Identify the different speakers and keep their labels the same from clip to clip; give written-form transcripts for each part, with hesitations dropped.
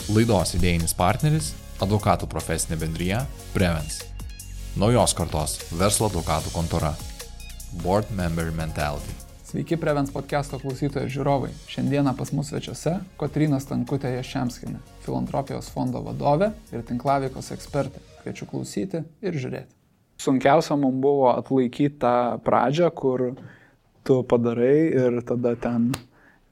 Speaker 1: Laidos idėjinis partneris – advokatų profesinė bendrija Prevens. Naujos kartos verslo advokatų kontora. Board Member Mentality.
Speaker 2: Sveiki Prevens podcast'o klausytojai ir žiūrovai. Šiandieną pas mus svečiuose Kotryna Stankutė Jaščemskienė, filantropijos fondo vadovė ir tinklaveikos ekspertė. Kviečiu klausyti ir žiūrėti. Sunkiausia mums buvo atlaikyti tą pradžią, kur tu padarai ir tada ten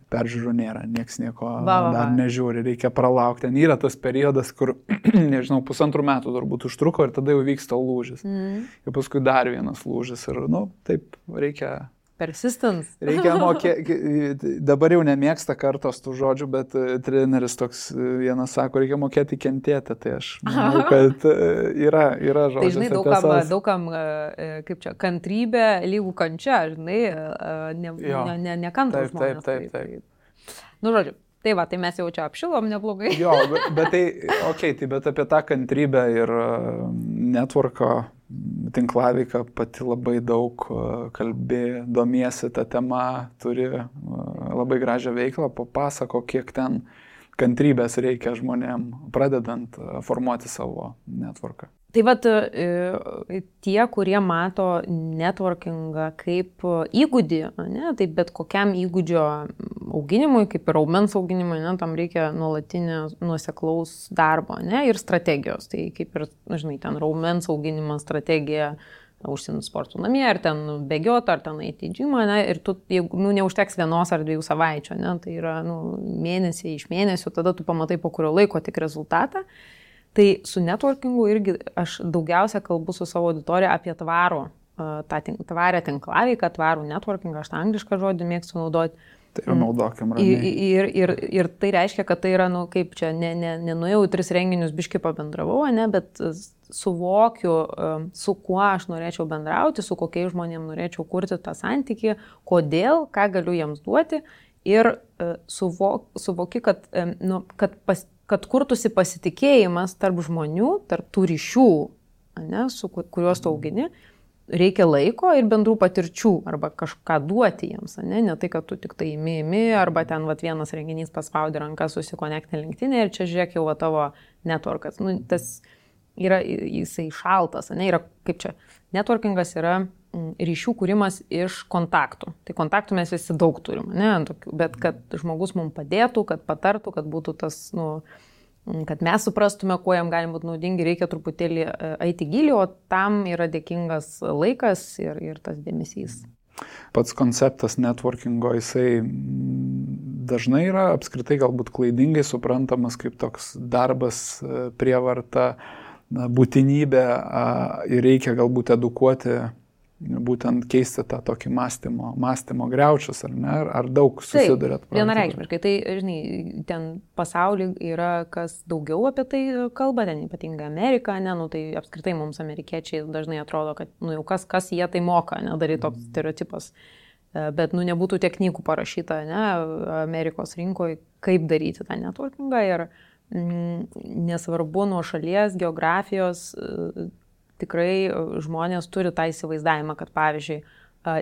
Speaker 2: peržiūrų nėra, nieks nieko dar nežiūri, reikia pralaukti. Ten yra tas periodas, kur, nežinau, 1,5 metų turbūt užtruko ir tada jau vyksta lūžis. Ir paskui dar vienas lūžis ir, taip reikia...
Speaker 3: Persistence.
Speaker 2: Reikia mokėti, dabar jau nemėgsta kartos tų žodžių, bet treneris toks vienas sako, reikia mokėti kentėti, tai aš manau, kad yra žodžias.
Speaker 3: Tai žinai, daugam, kaip čia, kantrybė lygų kančia, žinai, nekantrus žmonės.
Speaker 2: Taip.
Speaker 3: Žodžiu, tai mes jau čia apšilom neblogai.
Speaker 2: Jo, bet bet apie tą kantrybę ir networko tinklaveiką pati labai daug kalbė, domiesi tą temą, turi labai gražią veiklą, papasako, kiek ten kantrybės reikia žmonėm, pradedant formuoti savo networką.
Speaker 3: Tai tie, kurie mato networkingą kaip įgūdį, tai bet kokiam įgūdžio auginimui, kaip ir raumens auginimui, tam reikia nuolatinio nuoseklaus darbo ir strategijos. Tai kaip ir, žinai, ten raumens auginimas, strategija, užsienio sportų namie, ar ten bėgioti, ar ten eiti į džimą, ir tu, jeigu neužteks 1 ar 2 savaičių, tai yra mėnesiai iš mėnesių, tada tu pamatai po kurio laiko tik rezultatą. Tai su networkingu irgi aš daugiausia kalbu su savo auditorija apie tvarę tinklaveiką, tvarų networkingą, aš tą anglišką žodį mėgstu naudoti.
Speaker 2: Tai yra naudokim ramiai.
Speaker 3: Ir tai reiškia, kad tai yra, kaip čia, nenuėjau į 3 renginius, biškį pabendravau, bet suvokiu, su kuo aš norėčiau bendrauti, su kokiais žmonėms norėčiau kurti tą santykį, kodėl, ką galiu jiems duoti ir suvoki, kad kurtųsi pasitikėjimas tarp žmonių, tarp tų ryšių, kuriuos tu augini, reikia laiko ir bendrų patirčių arba kažką duoti jiems, ne tai, kad tu tik tai imi, arba ten vienas renginys paspaudė ranką, susikonektinė LinkedIn ir čia žiūrėk jau tavo networkas. Tas yra, jisai šaltas, yra kaip čia, networkingas yra ryšių kūrimas iš kontaktų. Tai kontaktų mes visi daug turim, bet kad žmogus mums padėtų, kad patartų, kad būtų tas, kad mes suprastume, kuo jam gali būti naudingi, reikia truputėlį eiti gilį, o tam yra dėkingas laikas ir tas dėmesys.
Speaker 2: Pats konceptas networkingo, jisai dažnai yra apskritai galbūt klaidingai suprantamas kaip toks darbas, prievarta, būtinybė ir reikia galbūt edukuoti, būtent keisti tą tokį mąstymo griaučius, ar ne? Ar daug susidurėt?
Speaker 3: Taip, vienareikšmiškai. Tai, žinai, ten pasaulyje yra kas daugiau apie tai kalba, ten ypatingai Amerika, tai apskritai mums amerikiečiai dažnai atrodo, kad jau kas jie tai moka, daryti toks stereotipas. Bet nebūtų tiek knygų parašyta, Amerikos rinkoje, kaip daryti tą networkingą ir nesvarbu nuo šalies, geografijos, tikrai žmonės turi tą įsivaizdavimą, kad pavyzdžiui,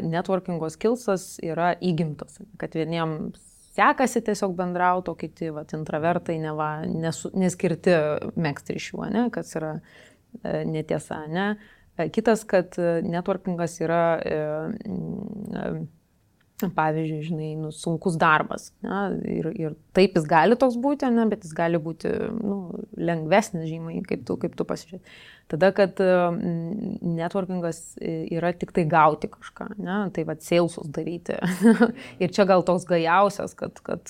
Speaker 3: networkingo skillsas yra įgimtas, kad vieniems sekasi tiesiog bendrauti, o kiti intravertai neskirti megzti ryšių, kas yra netiesa. Kitas, kad networkingas yra, pavyzdžiui, žinai, sunkus darbas. Ir taip jis gali toks būti, bet jis gali būti lengvesnis žymiai, kaip tu pasižiūrėt. Tada, kad networkingas yra tik tai gauti kažką, tai salesus daryti. Ir čia gal toks gajausias, kad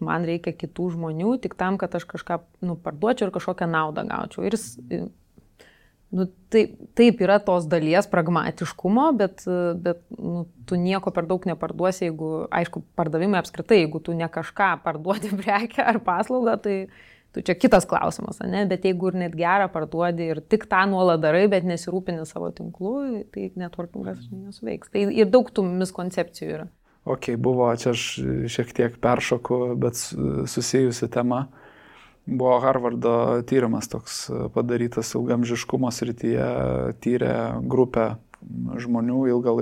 Speaker 3: man reikia kitų žmonių tik tam, kad aš kažką parduočiau ir kažkokią naudą gaučiau. Ir taip yra tos dalies pragmatiškumo, bet tu nieko per daug neparduosi, jeigu, aišku, pardavimai apskritai, jeigu tu ne kažką parduodi prekę ar paslaugą, tai tu čia kitas klausimas, bet jeigu ir net gerą parduodi ir tik tą nuolat darai, bet nesirūpini savo tinklų, tai networkingas nesuveiks. Tai ir daug tų miskoncepcijų yra.
Speaker 2: Buvo, čia aš šiek tiek peršoku, bet susijusi tema. Buvo Harvardo tyrimas toks padarytas ilgamžiškumo srityje, tyrė grupę žmonių ilgą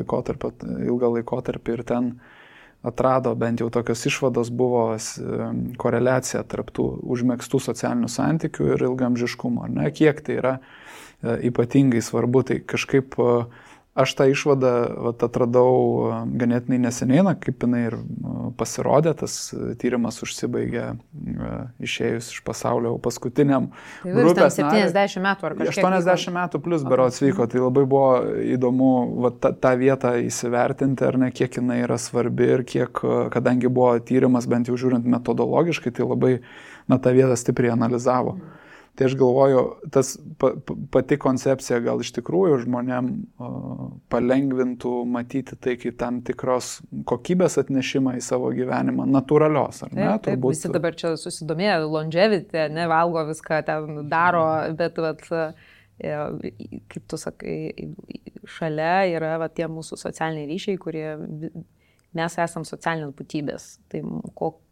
Speaker 2: laikotarpį ir ten atrado, bent jau tokios išvados buvo koreliacija tarp tų užmėgstų socialinių santykių ir ilgamžiškumo. Ne? Kiek tai yra ypatingai svarbu, tai kažkaip aš tą išvadą atradau ganėtinai neseniai, kaip jinai ir pasirodė, tas tyrimas užsibaigė išėjus iš pasaulio paskutiniam grupės nariui.
Speaker 3: 70 metų ar kažkiek.
Speaker 2: 80 metų plus berods vyko, tai labai buvo įdomu tą vietą įsivertinti, ar ne, kiek jinai yra svarbi ir kiek, kadangi buvo tyrimas, bent jau žiūrint metodologiškai, tai labai tą vietą stipriai analizavo. Tai aš galvoju, tas pati koncepcija gal iš tikrųjų žmonėm palengvintų matyti tai kaip tam tikros kokybės atnešimą į savo gyvenimą, natūralios, ar ne?
Speaker 3: Taip, visi dabar čia susidomėjo, longevity, nevalgo viską, ten daro, bet kaip tu sakai, šalia yra tie mūsų socialiniai ryšiai, kurie mes esam socialinės būtybės. Tai,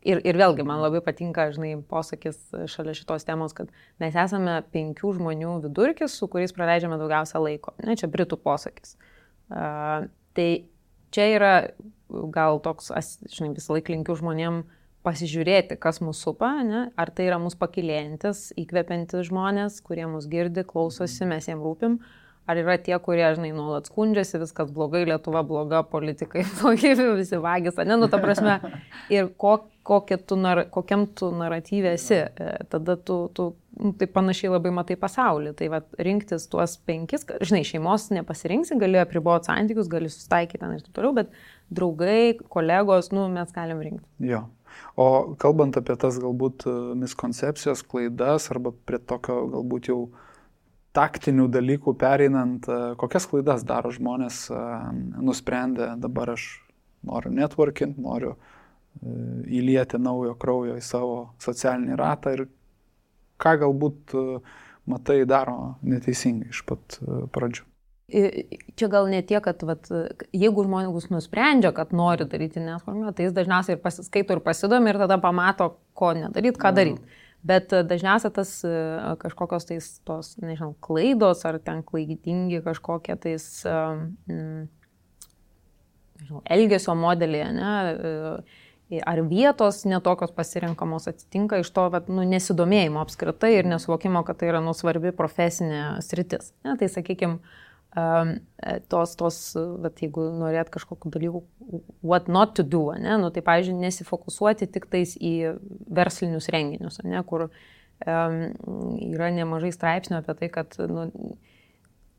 Speaker 3: ir vėlgi, man labai patinka, posakis šalia šitos temos, kad mes esame 5 žmonių vidurkis, su kuriais praleidžiame daugiausia laiko. Ne, čia britų posakis. Tai čia yra gal toks, visą laiką linkiu žmonėm pasižiūrėti, kas mūsų supa, ne? Ar tai yra mūsų pakilėjantis, įkvepiantis žmonės, kurie mus girdi, klausosi, mes jiem rūpim. Ar yra tie, kurie, nuolat skundžiasi, viskas blogai, Lietuva bloga, politikai blogi, visi vagis, ta prasme, ir kokiam tu naratyve esi, tada tu tai panašiai labai matai pasaulį. Tai rinktis tuos 5, šeimos nepasirinksi, gali apriboti santykius, gali susitaikyti ir taip toliau, bet draugai, kolegos, mes galim rinkti.
Speaker 2: Jo. O kalbant apie tas galbūt miskoncepcijos, klaidas arba prie tokio galbūt jau taktinių dalykų pereinant, kokias klaidas daro žmonės nusprendę, dabar aš noriu networking, noriu įlieti naujo kraujo į savo socialinį ratą ir ką galbūt matai daro neteisingai iš pat pradžių.
Speaker 3: Čia gal ne tiek, kad jeigu žmogus nusprendžia, kad nori daryti networking, tai jis dažniausiai ir pasiskaito ir pasidomi ir tada pamato, ko nedaryti, ką daryti. Bet dažniausiai tas kažkokios tos, klaidos ar ten klaidingi kažkokie tais elgesio modeliai, ar vietos netokios pasirinkamos atsitinka iš to nesidomėjimo apskritai ir nesuvokimo, kad tai yra svarbi profesinė sritis. Ne? Tai sakykime, jeigu norėt kažkokiu dalyku, what not to do, tai pavyzdžiui, nesifokusuoti tik tais į verslinius renginius, kur yra nemažai straipsnių apie tai, kad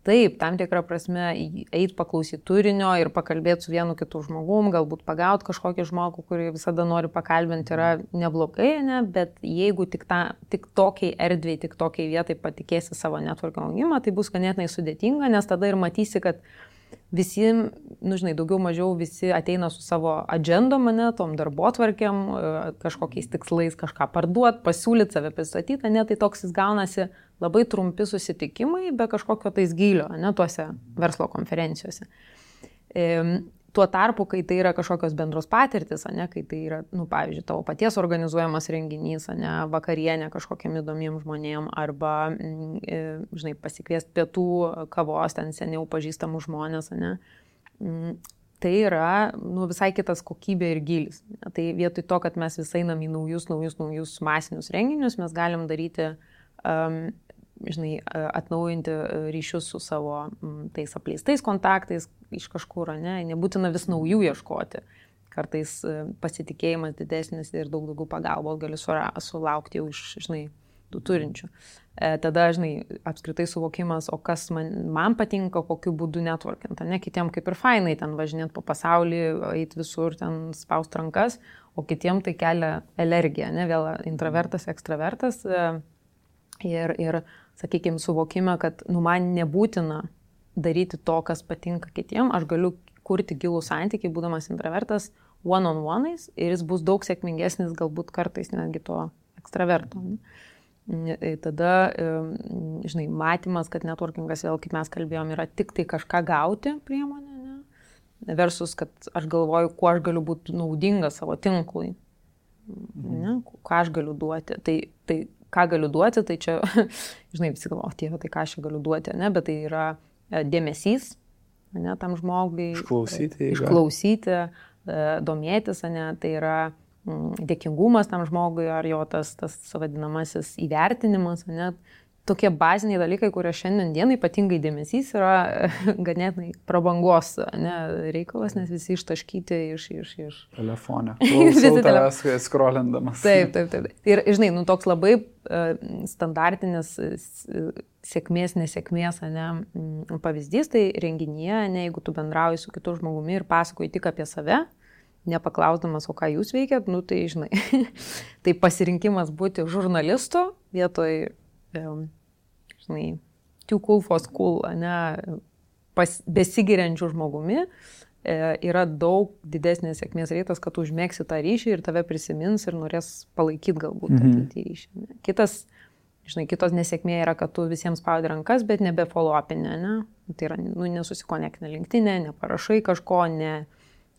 Speaker 3: taip, tam tikrą prasme eit paklausyti turinio ir pakalbėti su vienu kitu žmogum, galbūt pagauti kažkokį žmogų, kurį visada nori pakalbinti, yra neblogai, bet jeigu tik tokiai erdvei, tik tokiai vietai patikėsi savo networking augimą, tai bus ganėtinai sudėtinga, nes tada ir matysi, kad visi, daugiau mažiau visi ateina su savo agendom, tom darbotvarkėm, kažkokiais tikslais kažką parduoti, pasiūlyti, save pristatyti, tai toks jis gaunasi labai trumpi susitikimai, be kažkokio tais gylio, tuose verslo konferencijose. Tuo tarpu, kai tai yra kažkokios bendros patirtis, kai tai yra, pavyzdžiui, tavo paties organizuojamas renginys, vakarienė kažkokiam įdomiem žmonėm, arba, pasikviesti pietų, kavos, ten seniau pažįstamų žmonės, tai yra visai kitas kokybė ir gylis. Tai vietoj to, kad mes vis einam į naujus masinius renginius, mes galim daryti atnaujinti ryšius su savo tais apleistais kontaktais iš kažkur, nebūtina vis naujų ieškoti. Kartais pasitikėjimas didesnis ir daug daugiau pagalbos gali sulaukti jau iš tų turinčių. Tada, apskritai suvokimas, o kas man patinka, kokiu būdu networkint, kitiem kaip ir fainai ten važinėti po pasaulį, eiti visur, ten spaust rankas, o kitiem tai kelia alergiją, vėl intravertas, ekstravertas. Ir sakykime, suvokime, kad man nebūtina daryti to, kas patinka kitiem, aš galiu kurti gilų santykį, būdamas intravertas, one-on-one'ais, ir jis bus daug sėkmingesnis, galbūt kartais netgi to ekstraverto. Tada, matymas, kad networkingas, vėl kaip mes kalbėjom, yra tik tai kažką gauti priemonė, versus, kad aš galvoju, kuo aš galiu būti naudinga savo tinklui, ką aš galiu duoti. Tai ką galiu duoti, tai čia, visi galvoja, tai ką aš galiu duoti, bet tai yra dėmesys, tam žmogui.
Speaker 2: Išklausyti,
Speaker 3: domėtis, ne, tai yra dėkingumas tam žmogui ar jo tas vadinamasis įvertinimas, ne. Tokie baziniai dalykai, kurie šiandien dienai ypatingai dėmesys yra ganėtinai prabangos, ne, reikalas, nes visi ištaškyti iš...
Speaker 2: Telefone. Klausau tavęs skrolindamas.
Speaker 3: Taip. Ir, žinai, toks labai standartinis sėkmės, nesėkmės, ne, pavyzdys, tai renginyje, ne, jeigu tu bendrauji su kitu žmogumi ir pasakoji tik apie save, nepaklausdamas, o ką jūs veikiat, tai, žinai, tai pasirinkimas būti žurnalistu vietoj žinai, too cool for school, ne, besigiriančių žmogumi, yra daug didesnės sėkmės reitas, kad tu užmėgsi tą ryšį ir tave prisimins ir norės palaikyti galbūt tą ryšį. Ne. Kitos nesėkmė yra, kad tu visiems spaudi rankas, bet nebe follow-upinė, ne. Tai yra, nesusikonektinė LinkedIn'e, neparašai kažko,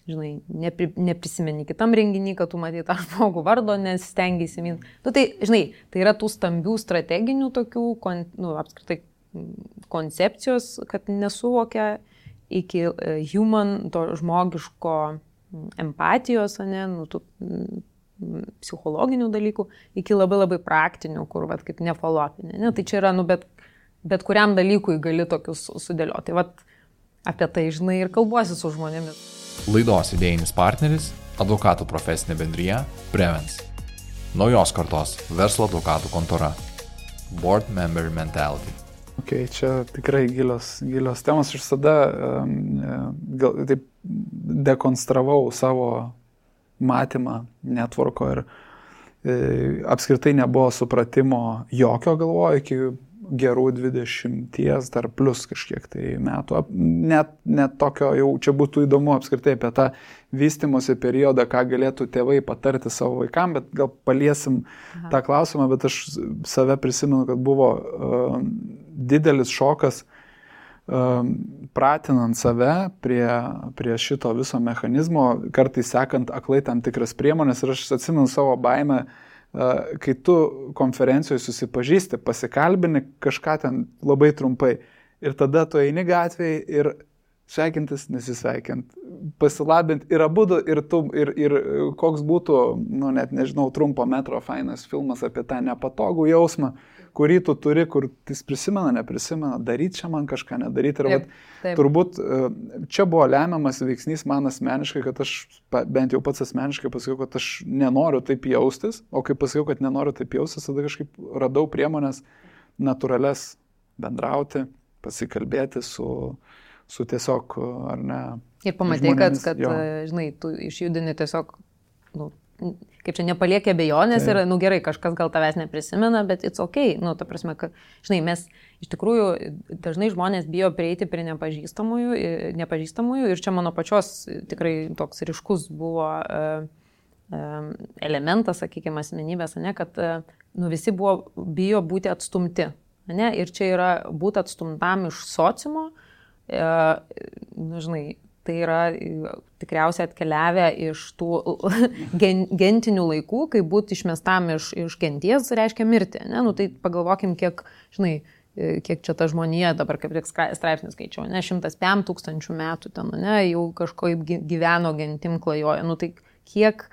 Speaker 3: neprisimeni kitam renginį, kad tu matai tą žmogų vardo, nesistengi įsiminti. Tai, žinai, tai yra tų stambių strateginių tokių, apskritai koncepcijos, kad nesuvokia iki human, to žmogiško empatijos, ne, tų psichologinių dalykų, iki labai labai praktinių, kur, kaip nefollow-upinė. Ne? Tai čia yra, bet kuriam dalykui gali tokius sudėlioti. Tai, apie tai, žinai, ir kalbuosi su žmonėmis.
Speaker 1: Laidos idėjinis partneris – advokatų profesinė bendrija Prevens. Naujos kartos verslo advokatų kontora. Board Member Mentality.
Speaker 2: Okay, čia tikrai gilios temos. Aš visada taip dekonstravau savo matymą networko ir apskritai nebuvo supratimo jokio, galvoju, iki gerų 20 dar plus kažkiek tai metų. Net tokio jau čia būtų įdomu apskritai apie tą vystymosi periodą, ką galėtų tėvai patarti savo vaikam, bet gal paliesim tą klausimą, bet aš save prisimenu, kad buvo didelis šokas pratinant save prie šito viso mechanizmo, kartais sekant aklai tam tikras priemonės ir aš atsimenu savo baimę, kai tu konferencijoje susipažįsti, pasikalbini kažką ten labai trumpai ir tada tu eini gatvėje ir sveikintis, nesisveikint, pasilabint ir abudu ir koks būtų, net nežinau, trumpo metro fainas filmas apie tą nepatogų jausmą, kurį tu turi, kur jis prisimena, neprisimena, daryti čia man kažką, nedaryti. Ir taip. Turbūt čia buvo lemiamas veiksnys man asmeniškai, kad aš bent jau pats asmeniškai pasakiau, kad aš nenoriu taip jaustis, o kai pasakiau, kad nenoriu taip jaustis, tada kažkaip radau priemonės natūrales bendrauti, pasikalbėti su tiesiog, ar ne. Ir
Speaker 3: pamatai, kad žinai, tu išjudini tiesiog, kaip čia nepaliekė abejonės ir, gerai, kažkas gal tavęs neprisimena, bet it's okay. Ta prasme, kad, žinai, mes iš tikrųjų dažnai žmonės bijo prieiti prie nepažįstamųjų ir čia mano pačios tikrai toks ryškus buvo elementas, sakykime, asmenybės, ne, kad visi bijo būti atstumti. Ne, ir čia yra būti atstumtam iš sociumo, žinai, tai yra tikriausiai atkeliavę iš tų gentinių laikų, kai būti išmestam iš genties reiškia mirti. Ne? Tai pagalvokim, kiek čia ta žmonija, dabar kaip tik straipsnis skaičiau, 105 tūkstančių metų ten, ne, jau kažkaip gyveno gentim klajoja. Tai kiek,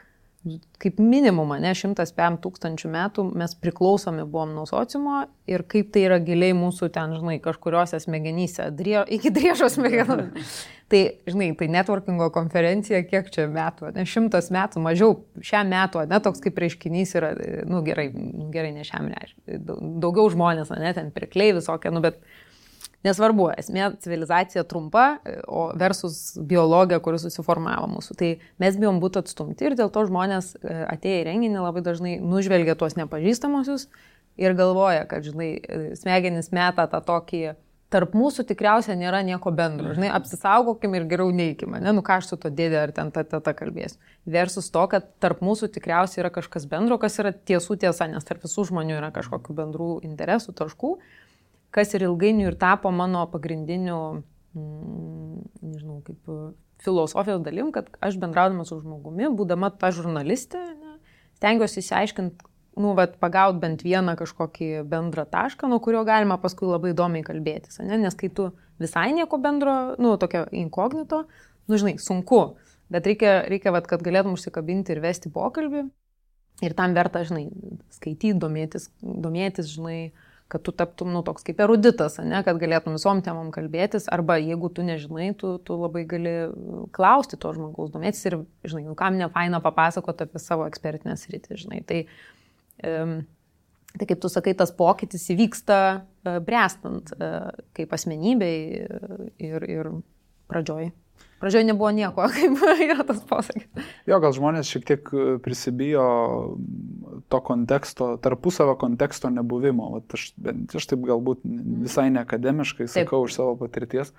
Speaker 3: kaip minimum, 105 tūkstančių metų mes priklausomi buvom nuo sociumo ir kaip tai yra giliai mūsų ten, žinai, kažkuriuose smegenyse, iki driežos smegenų. Tai, žinai, tai networkingo konferencija, kiek čia metų, 100 metų, mažiau šiam metų, toks kaip reiškinys yra, gerai, ne šiam reiškiniui, daugiau žmonės, ten pirkliai visokie, bet nesvarbu, esmė civilizacija trumpa, o versus biologija, kuri susiformavo mūsų. Tai mes bijom būti atstumti ir dėl to žmonės atėję į renginį labai dažnai nužvelgia tuos nepažįstamusius ir galvoja, kad, žinai, smegenys meta tą tokį, tarp mūsų tikriausiai nėra nieko bendro. Žinai, apsisaugokim ir geriau neikime. Ką aš su to dėdė ar ten ta kalbėsiu. Versus to, kad tarp mūsų tikriausiai yra kažkas bendro, kas yra tiesų tiesa, nes tarp visų žmonių yra kažkokių bendrų interesų, taškų, kas ir ilgainiui ir tapo mano pagrindiniu, nežinau, kaip filosofijos dalim, kad aš bendraudama su žmogumi, būdama ta žurnalistė, stengiuosi išsiaiškinti, pagaut bent vieną kažkokį bendrą tašką, nuo kurio galima paskui labai įdomiai kalbėtis, nes kai tu visai nieko bendro, tokio inkognito, žinai, sunku Bet reikia vat, kad galėtum užsikabinti ir vesti pokalbį. Ir tam verta, žinai, skaityti, domėtis, žinai, kad tu taptum, toks kaip eruditas, ne, kad galėtum visom temom kalbėtis, arba jeigu tu nežinai, tu labai gali klausti to žmogaus, domėtis ir, žinai, kam nefaina papasakoti apie savo ekspertinę sritį, žinai. Tai kaip tu sakai, tas pokytis įvyksta bręstant kaip asmenybei ir pradžioj. Pradžioj nebuvo nieko, kaip yra tas posakis.
Speaker 2: Jo, gal žmonės šiek tiek prisibijo to konteksto, tarpusavio konteksto nebuvimo. Aš taip galbūt visai neakademiškai sakau iš savo patirties,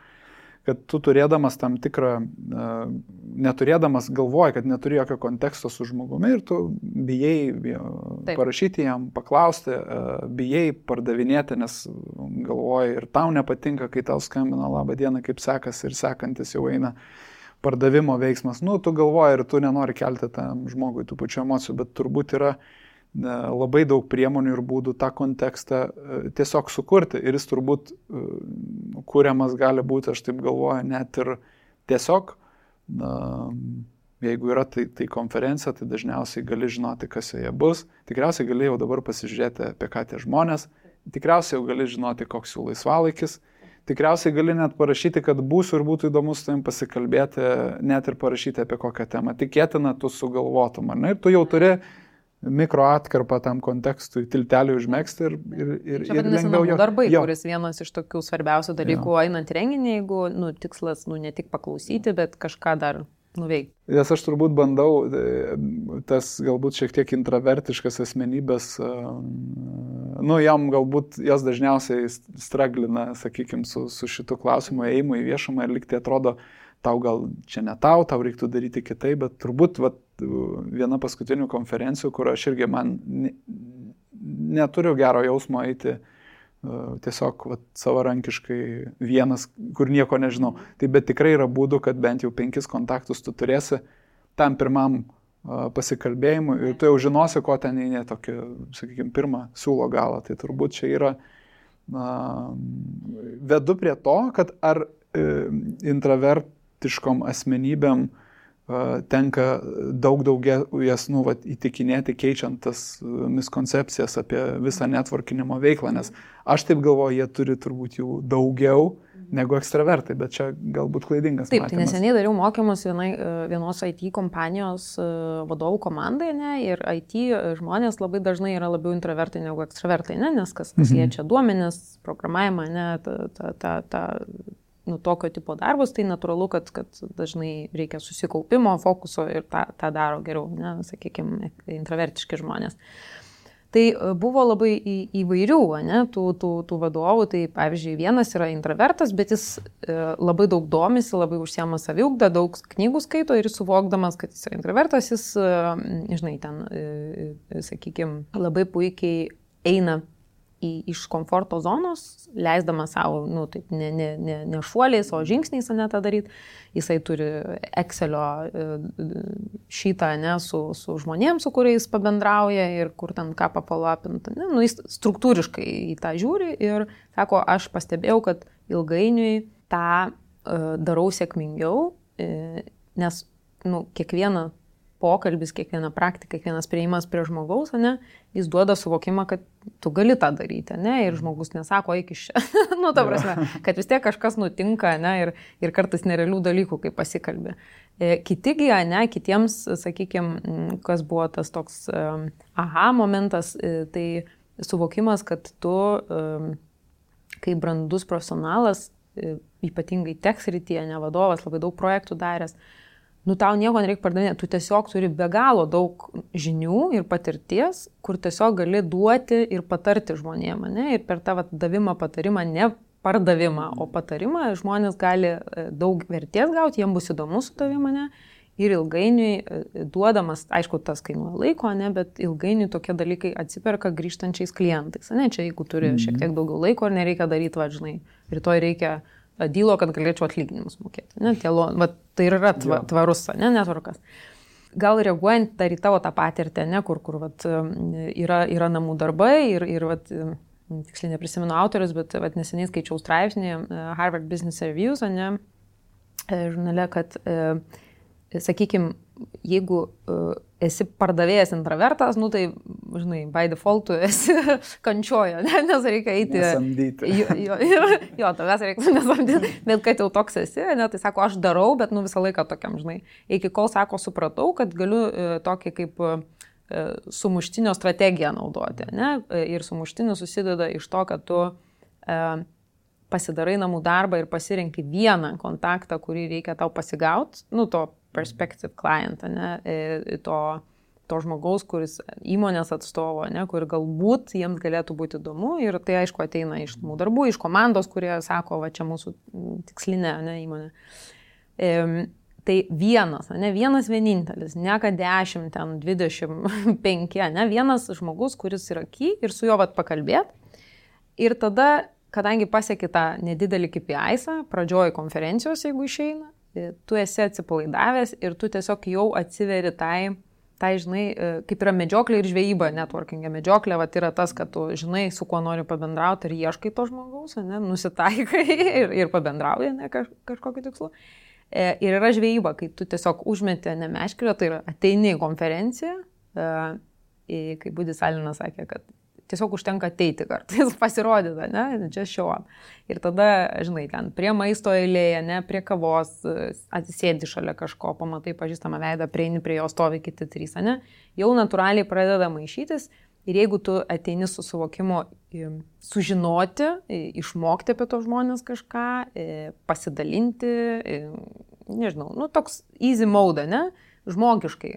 Speaker 2: kad tu turėdamas tam tikrą, neturėdamas galvoji, kad neturi jokio konteksto su žmogumi ir tu bijai parašyti jam, paklausti, bijai pardavinėti, nes galvoji ir tau nepatinka, kai tau skambina labą dieną, kaip sekasi ir sekantis jau eina pardavimo veiksmas. Tu galvoji ir tu nenori kelti tam žmogui tų pačių emocijų, bet turbūt yra labai daug priemonių ir būdų tą kontekstą tiesiog sukurti. Ir jis turbūt kuriamas gali būti, aš taip galvoju, net ir tiesiog, jeigu yra tai konferencija, tai dažniausiai gali žinoti, kas joje bus. Tikriausiai gali jau dabar pasižiūrėti, apie ką tie žmonės. Tikriausiai jau gali žinoti, koks jų laisvalaikis. Tikriausiai gali net parašyti, kad būsiu ir būtų įdomu su tavim pasikalbėti, net ir parašyti apie kokią temą. Tikėtina, tu sugalvotum, ar ne? Ir tu jau turi mikro atkarpą tam kontekstui, tiltelį užmegzti ir lengviau jo.
Speaker 3: Darbai, kuris vienas iš tokių svarbiausių dalykų einant renginį, jeigu tikslas ne tik paklausyti, bet kažką dar nuveikti.
Speaker 2: Nes aš turbūt bandau, tas galbūt šiek tiek intravertiškas asmenybės, jam galbūt jos dažniausiai straglina, sakykime, su šitu klausimu ėjimu į viešumą ir liktai atrodo, tau gal čia ne tau reiktų daryti kitaip, bet turbūt viena paskutinių konferencijų, kur aš irgi neturiu gero jausmo eiti tiesiog savarankiškai vienas, kur nieko nežinau. Tai bet tikrai yra būdų, kad bent jau 5 kontaktus tu turėsi tam pirmam pasikalbėjimui ir tu jau žinosi, ko ten eini tokį, sakykime, pirmą siūlo galą. Tai turbūt čia yra vedu prie to, kad ar intravertiškom asmenybėm tenka jas įtikinėti, keičiant tas miskoncepcijas apie visą networkinimo veiklą, nes aš taip galvoju, jie turi turbūt jų daugiau negu ekstravertai, bet čia galbūt klaidingas matymas.
Speaker 3: Taip, tai neseniai dariau mokymus vienos IT kompanijos vadovų komandai, ne, ir IT žmonės labai dažnai yra labiau intravertai negu ekstravertai, ne, nes kas liečia duomenis, programavimą, ne, tokio tipo darbus, tai natūralu, kad dažnai reikia susikaupimo, fokuso ir tą daro geriau, ne, sakykime, intravertiški žmonės. Tai buvo labai įvairių, ne, tų vadovų, tai pavyzdžiui, vienas yra intravertas, bet jis labai daug domisi, labai užsiema saviugdą, daug knygų skaito ir suvokdamas, kad jis yra intravertas, jis, žinai, ten, sakykime, labai puikiai eina iš komforto zonos, leisdamas savo, taip, ne šuoliais, o žingsniais, ne tą daryti. Jisai turi Excelio šitą, ne, su žmonėms, su kuriais pabendrauja ir kur ten ką papalapinta. Jis struktūriškai į tą žiūri ir sako, aš pastebėjau, kad ilgainiui tą darau sėkmingiau, nes, kiekviena pokalbis, kiekviena praktika, kiekvienas prieimas prie žmogaus, ne, jis duoda suvokimą, kad tu gali tą daryti, ne, ir žmogus nesako, eik iš čia. Ta prasme, kad vis tiek kažkas nutinka, ne, ir kartais nerealių dalykų, kai pasikalbė. Kitigi, ne, kitiems, sakykime, kas buvo tas toks aha momentas, tai suvokimas, kad tu, kaip brandus profesionalas, ypatingai tech srityje, ne vadovas, labai daug projektų daręs, tau nieko nereikia pardavinėti, tu tiesiog turi be galo daug žinių ir patirties, kur tiesiog gali duoti ir patarti žmonėm, ne? Ir per tą davimą, patarimą, ne pardavimą, o patarimą žmonės gali daug vertės gauti, jiems bus įdomu su tavimi, ne? Ir ilgainiui duodamas, aišku, tas kainuoja laiko, ne? Bet ilgainiui tokie dalykai atsiperka grįžtančiais klientais, ne? Čia jeigu turi šiek tiek daugiau laiko ir nereikia daryti, žinai, rytoj reikia dylo, kad galėčiau atlyginimus mokėti. Ne? Tai yra tvarus, ne, netvarkas. Gal reaguojant dar į tavo tą patirtį, ne, kur yra namų darbai ir tiksliai neprisimenu autorius, bet neseniai skaičiau straipsnį Harvard Business Reviews, ne, žurnale, kad sakykime, jeigu esi pardavėjas intravertas, nu tai, žinai, by default tu esi kančiojo, nes reikia eiti.
Speaker 2: Nesamdyti.
Speaker 3: Jo, tavęs reikia nesamdyti, bet kad jau toks esi, ne, tai sako, aš darau, bet visą laiką tokiam, žinai. Iki kol sako, supratau, kad galiu tokį kaip sumuštinio strategiją naudoti, ne? Ir sumuštinis susideda iš to, kad tu pasidarai namų darbą ir pasirenki vieną kontaktą, kurį reikia tau pasigauti, nu, to perspective client, ne, to žmogaus, kuris įmonės atstovo, ne, kur galbūt jiems galėtų būti įdomu ir tai aišku ateina iš namų darbų, iš komandos, kurie sako, va čia mūsų tikslinė, ne, įmonė. Tai vienas, ne, vienas vienintelis, ne kad 10, ten 25, ne, vienas žmogus, kuris yra key ir su juo vat pakalbėt. Ir tada, kadangi pasieki tą nedidelį KPI-są, pradžioj konferencijos, jeigu išeina, tu esi atsipalaidavęs ir tu tiesiog jau atsiveri tai, žinai, kaip yra medžioklė ir žvejyba, networkingė medžioklė, vat yra tas, kad tu žinai, su kuo nori pabendrauti ir ieškai to žmogaus, ne, nusitaikai ir pabendrauji, ne, kažkokiu tikslu. Ir yra žvejyba, kai tu tiesiog užmeti nemeškirę, tai yra ateini į konferenciją, kai Budis Alinas sakė, kad tiesiog užtenka ateiti kartais, pasirodyti, ne, čia show up. Ir tada, žinai, ten prie maisto eilėje, ne, prie kavos, atsisėdi šalia kažko, pamatai pažįstamą veidą, prieini prie jo, stovi kiti 3, ne, jau natūraliai pradeda maišytis ir jeigu tu ateini su suvokimu sužinoti, išmokti apie tos žmonės kažką, pasidalinti, nežinau, nu toks easy mode, ne, žmogiškai,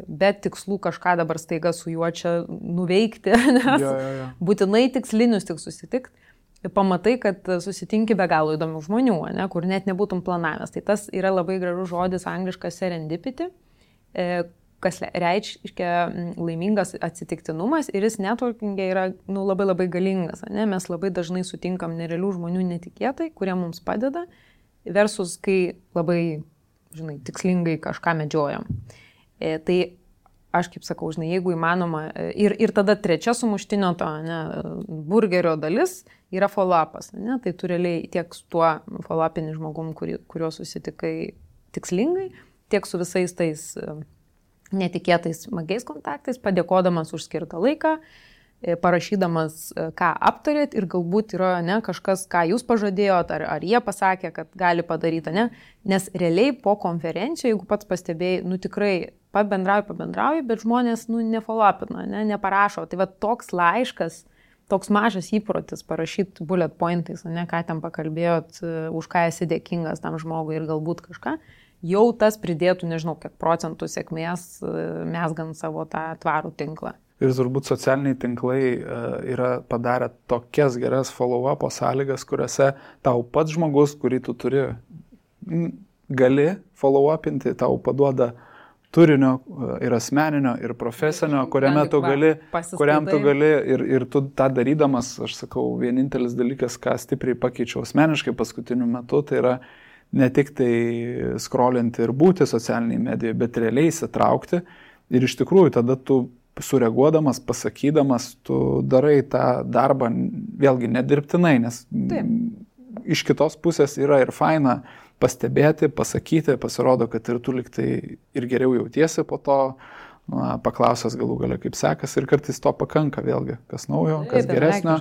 Speaker 3: bet tikslų kažką dabar staiga su juo čia nuveikti, nes būtinai tikslinius tik susitikti, pamatai, kad susitinki be galo įdomių žmonių, ne, kur net nebūtum planavęs. Tai tas yra labai gražus žodis angliškas serendipity, kas reiškia laimingas atsitiktinumas ir jis networkingė yra labai labai galingas. Ne? Mes labai dažnai sutinkam nerealių žmonių netikėtai, kurie mums padeda, versus kai labai, žinai, tikslingai kažką medžiojam. Tai aš kaip sakau, žinai, jeigu įmanoma, ir tada trečia sumuštinio to, ne, burgerio dalis yra follow-upas. Ne? Tai tu realiai tiek su tuo follow-upinį žmogum, kuriuo susitikai tikslingai, tiek su visais tais netikėtais smagiais kontaktais, padėkodamas už skirtą laiką, parašydamas, ką aptarėt ir galbūt yra, ne, kažkas, ką jūs pažadėjot, ar jie pasakė, kad gali padaryti, ne? Nes realiai po konferencijų, jeigu pats pastebėjai, tikrai pabendrauji, bet žmonės, nefollow-upina, ne, neparašo. Tai va toks laiškas, toks mažas įprotis parašyti bullet pointais, ne, ką ten pakalbėjot, už ką esi dėkingas tam žmogui ir galbūt kažką, jau tas pridėtų, nežinau, kiek procentų sėkmės mesgant savo tą tvarų tinklą.
Speaker 2: Ir turbūt socialiniai tinklai yra padarę tokias geras follow-up sąlygas, kuriuose tau pats žmogus, kurį tu turi, gali follow-upinti, tau paduoda turinio ir asmeninio, ir profesinio, kuriam tu gali ir tu tą darydamas, aš sakau, vienintelis dalykas, ką stipriai pakeičiau asmeniškai paskutiniu metu, tai yra ne tik tai scrollinti ir būti socialiniai medijoje, bet realiai įsitraukti ir iš tikrųjų tada tu sureaguodamas, pasakydamas, tu darai tą darbą vėlgi nedirbtinai, nes iš kitos pusės yra ir faina pastebėti, pasakyti, pasirodo, kad ir tu liktai ir geriau jautiesi po to, paklausęs galų gale kaip sekas ir kartais to pakanka vėlgi, kas naujo, kas geresnio,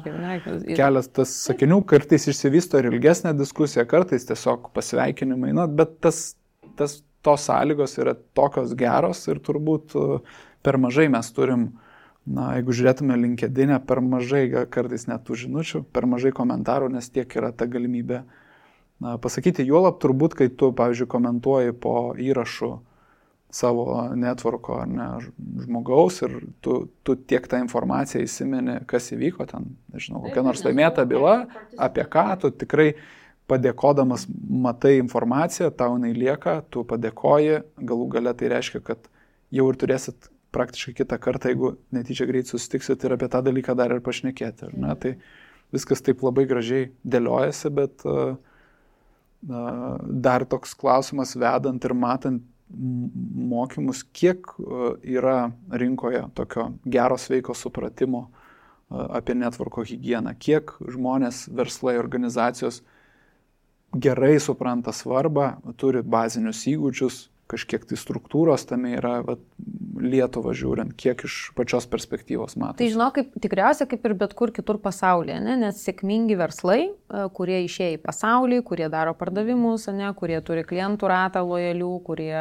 Speaker 2: kelias tas sakinių, kartais išsivysto ir ilgesnė diskusija, kartais tiesiog pasveikinimai, bet tos sąlygos yra tokios geros ir turbūt per mažai mes turim, jeigu žiūrėtume LinkedIn, per mažai kartais net tų žinučių, per mažai komentarų, nes tiek yra ta galimybė pasakyti. Juolab turbūt, kai tu, pavyzdžiui, komentuoji po įrašu savo networko ar ne žmogaus ir tu tiek tą informaciją įsimeni, kas įvyko ten, nežinau, kokia nors laimėta byla, apie ką tu tikrai padėkodamas matai informaciją, tau jinai lieka, tu padėkoji, galų gale tai reiškia, kad jau ir turėsit praktiškai kitą kartą, jeigu netyčia greit susitiksit ir apie tą dalyką dar ir pašnekėti. Ar ne? Tai viskas taip labai gražiai dėliojasi, bet dar toks klausimas vedant ir matant mokymus, kiek yra rinkoje tokio gero sveiko supratimo apie networko higieną, kiek žmonės, verslai, organizacijos gerai supranta svarbą, turi bazinius įgūdžius, kažkiek tai struktūros tame yra, vat, Lietuvą žiūrint, kiek iš pačios perspektyvos matosi?
Speaker 3: Tai žinau, tikriausiai kaip ir bet kur kitur pasaulyje, ne? Nes sėkmingi verslai, kurie išėję į pasaulį, kurie daro pardavimus, ne? Kurie turi klientų ratą lojalių, kurie,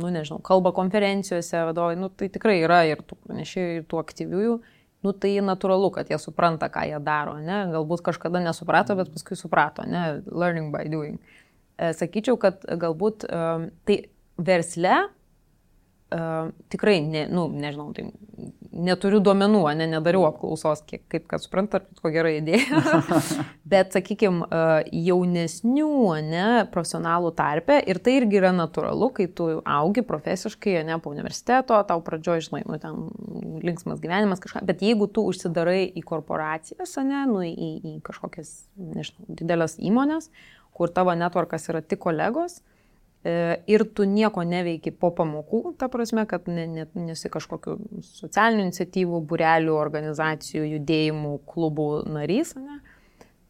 Speaker 3: nežinau, kalba konferencijose, vadovai, tai tikrai yra ir tų pranešėjų, ir tų aktyviųjų. Tai natūralu, kad jie supranta, ką jie daro, ne? Galbūt kažkada nesuprato, bet paskui suprato, ne? Learning by doing. Sakyčiau, kad galbūt tai versle tikrai, nežinau, tai neturiu duomenų, nedariau apklausos, kaip kad suprantat, ko gera idėja, bet, sakykime, jaunesnių, profesionalų tarpe, ir tai irgi yra natūralu, kai tu augi profesiškai, po universiteto, tau pradžioje, žinai, ten linksmas gyvenimas kažką, bet jeigu tu užsidarai į korporacijas, į kažkokias, nežinau, didelės įmonės, kur tavo networkas yra tik kolegos, ir tu nieko neveiki po pamokų, ta prasme, kad nesi kažkokių socialinių iniciatyvų, būrelių, organizacijų, judėjimų, klubų narys,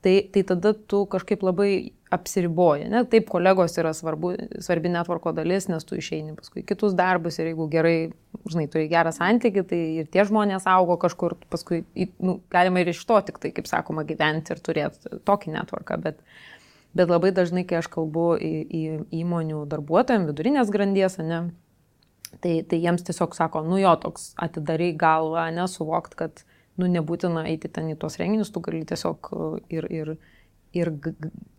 Speaker 3: tai tada tu kažkaip labai apsiriboji. Taip, kolegos yra svarbi networko dalis, nes tu išeini paskui kitus darbus ir jeigu gerai, žinai, turi gerą santykį, tai ir tie žmonės augo kažkur, paskui galima ir iš to tik tai, kaip sakoma, gyventi ir turėti tokį networką, bet labai dažnai, kai aš kalbu į įmonių darbuotojams, vidurinės grandies, tai jiems tiesiog sako, toks atidarai galvą, suvokt, kad nebūtina eiti ten į tuos renginius, tu gali tiesiog ir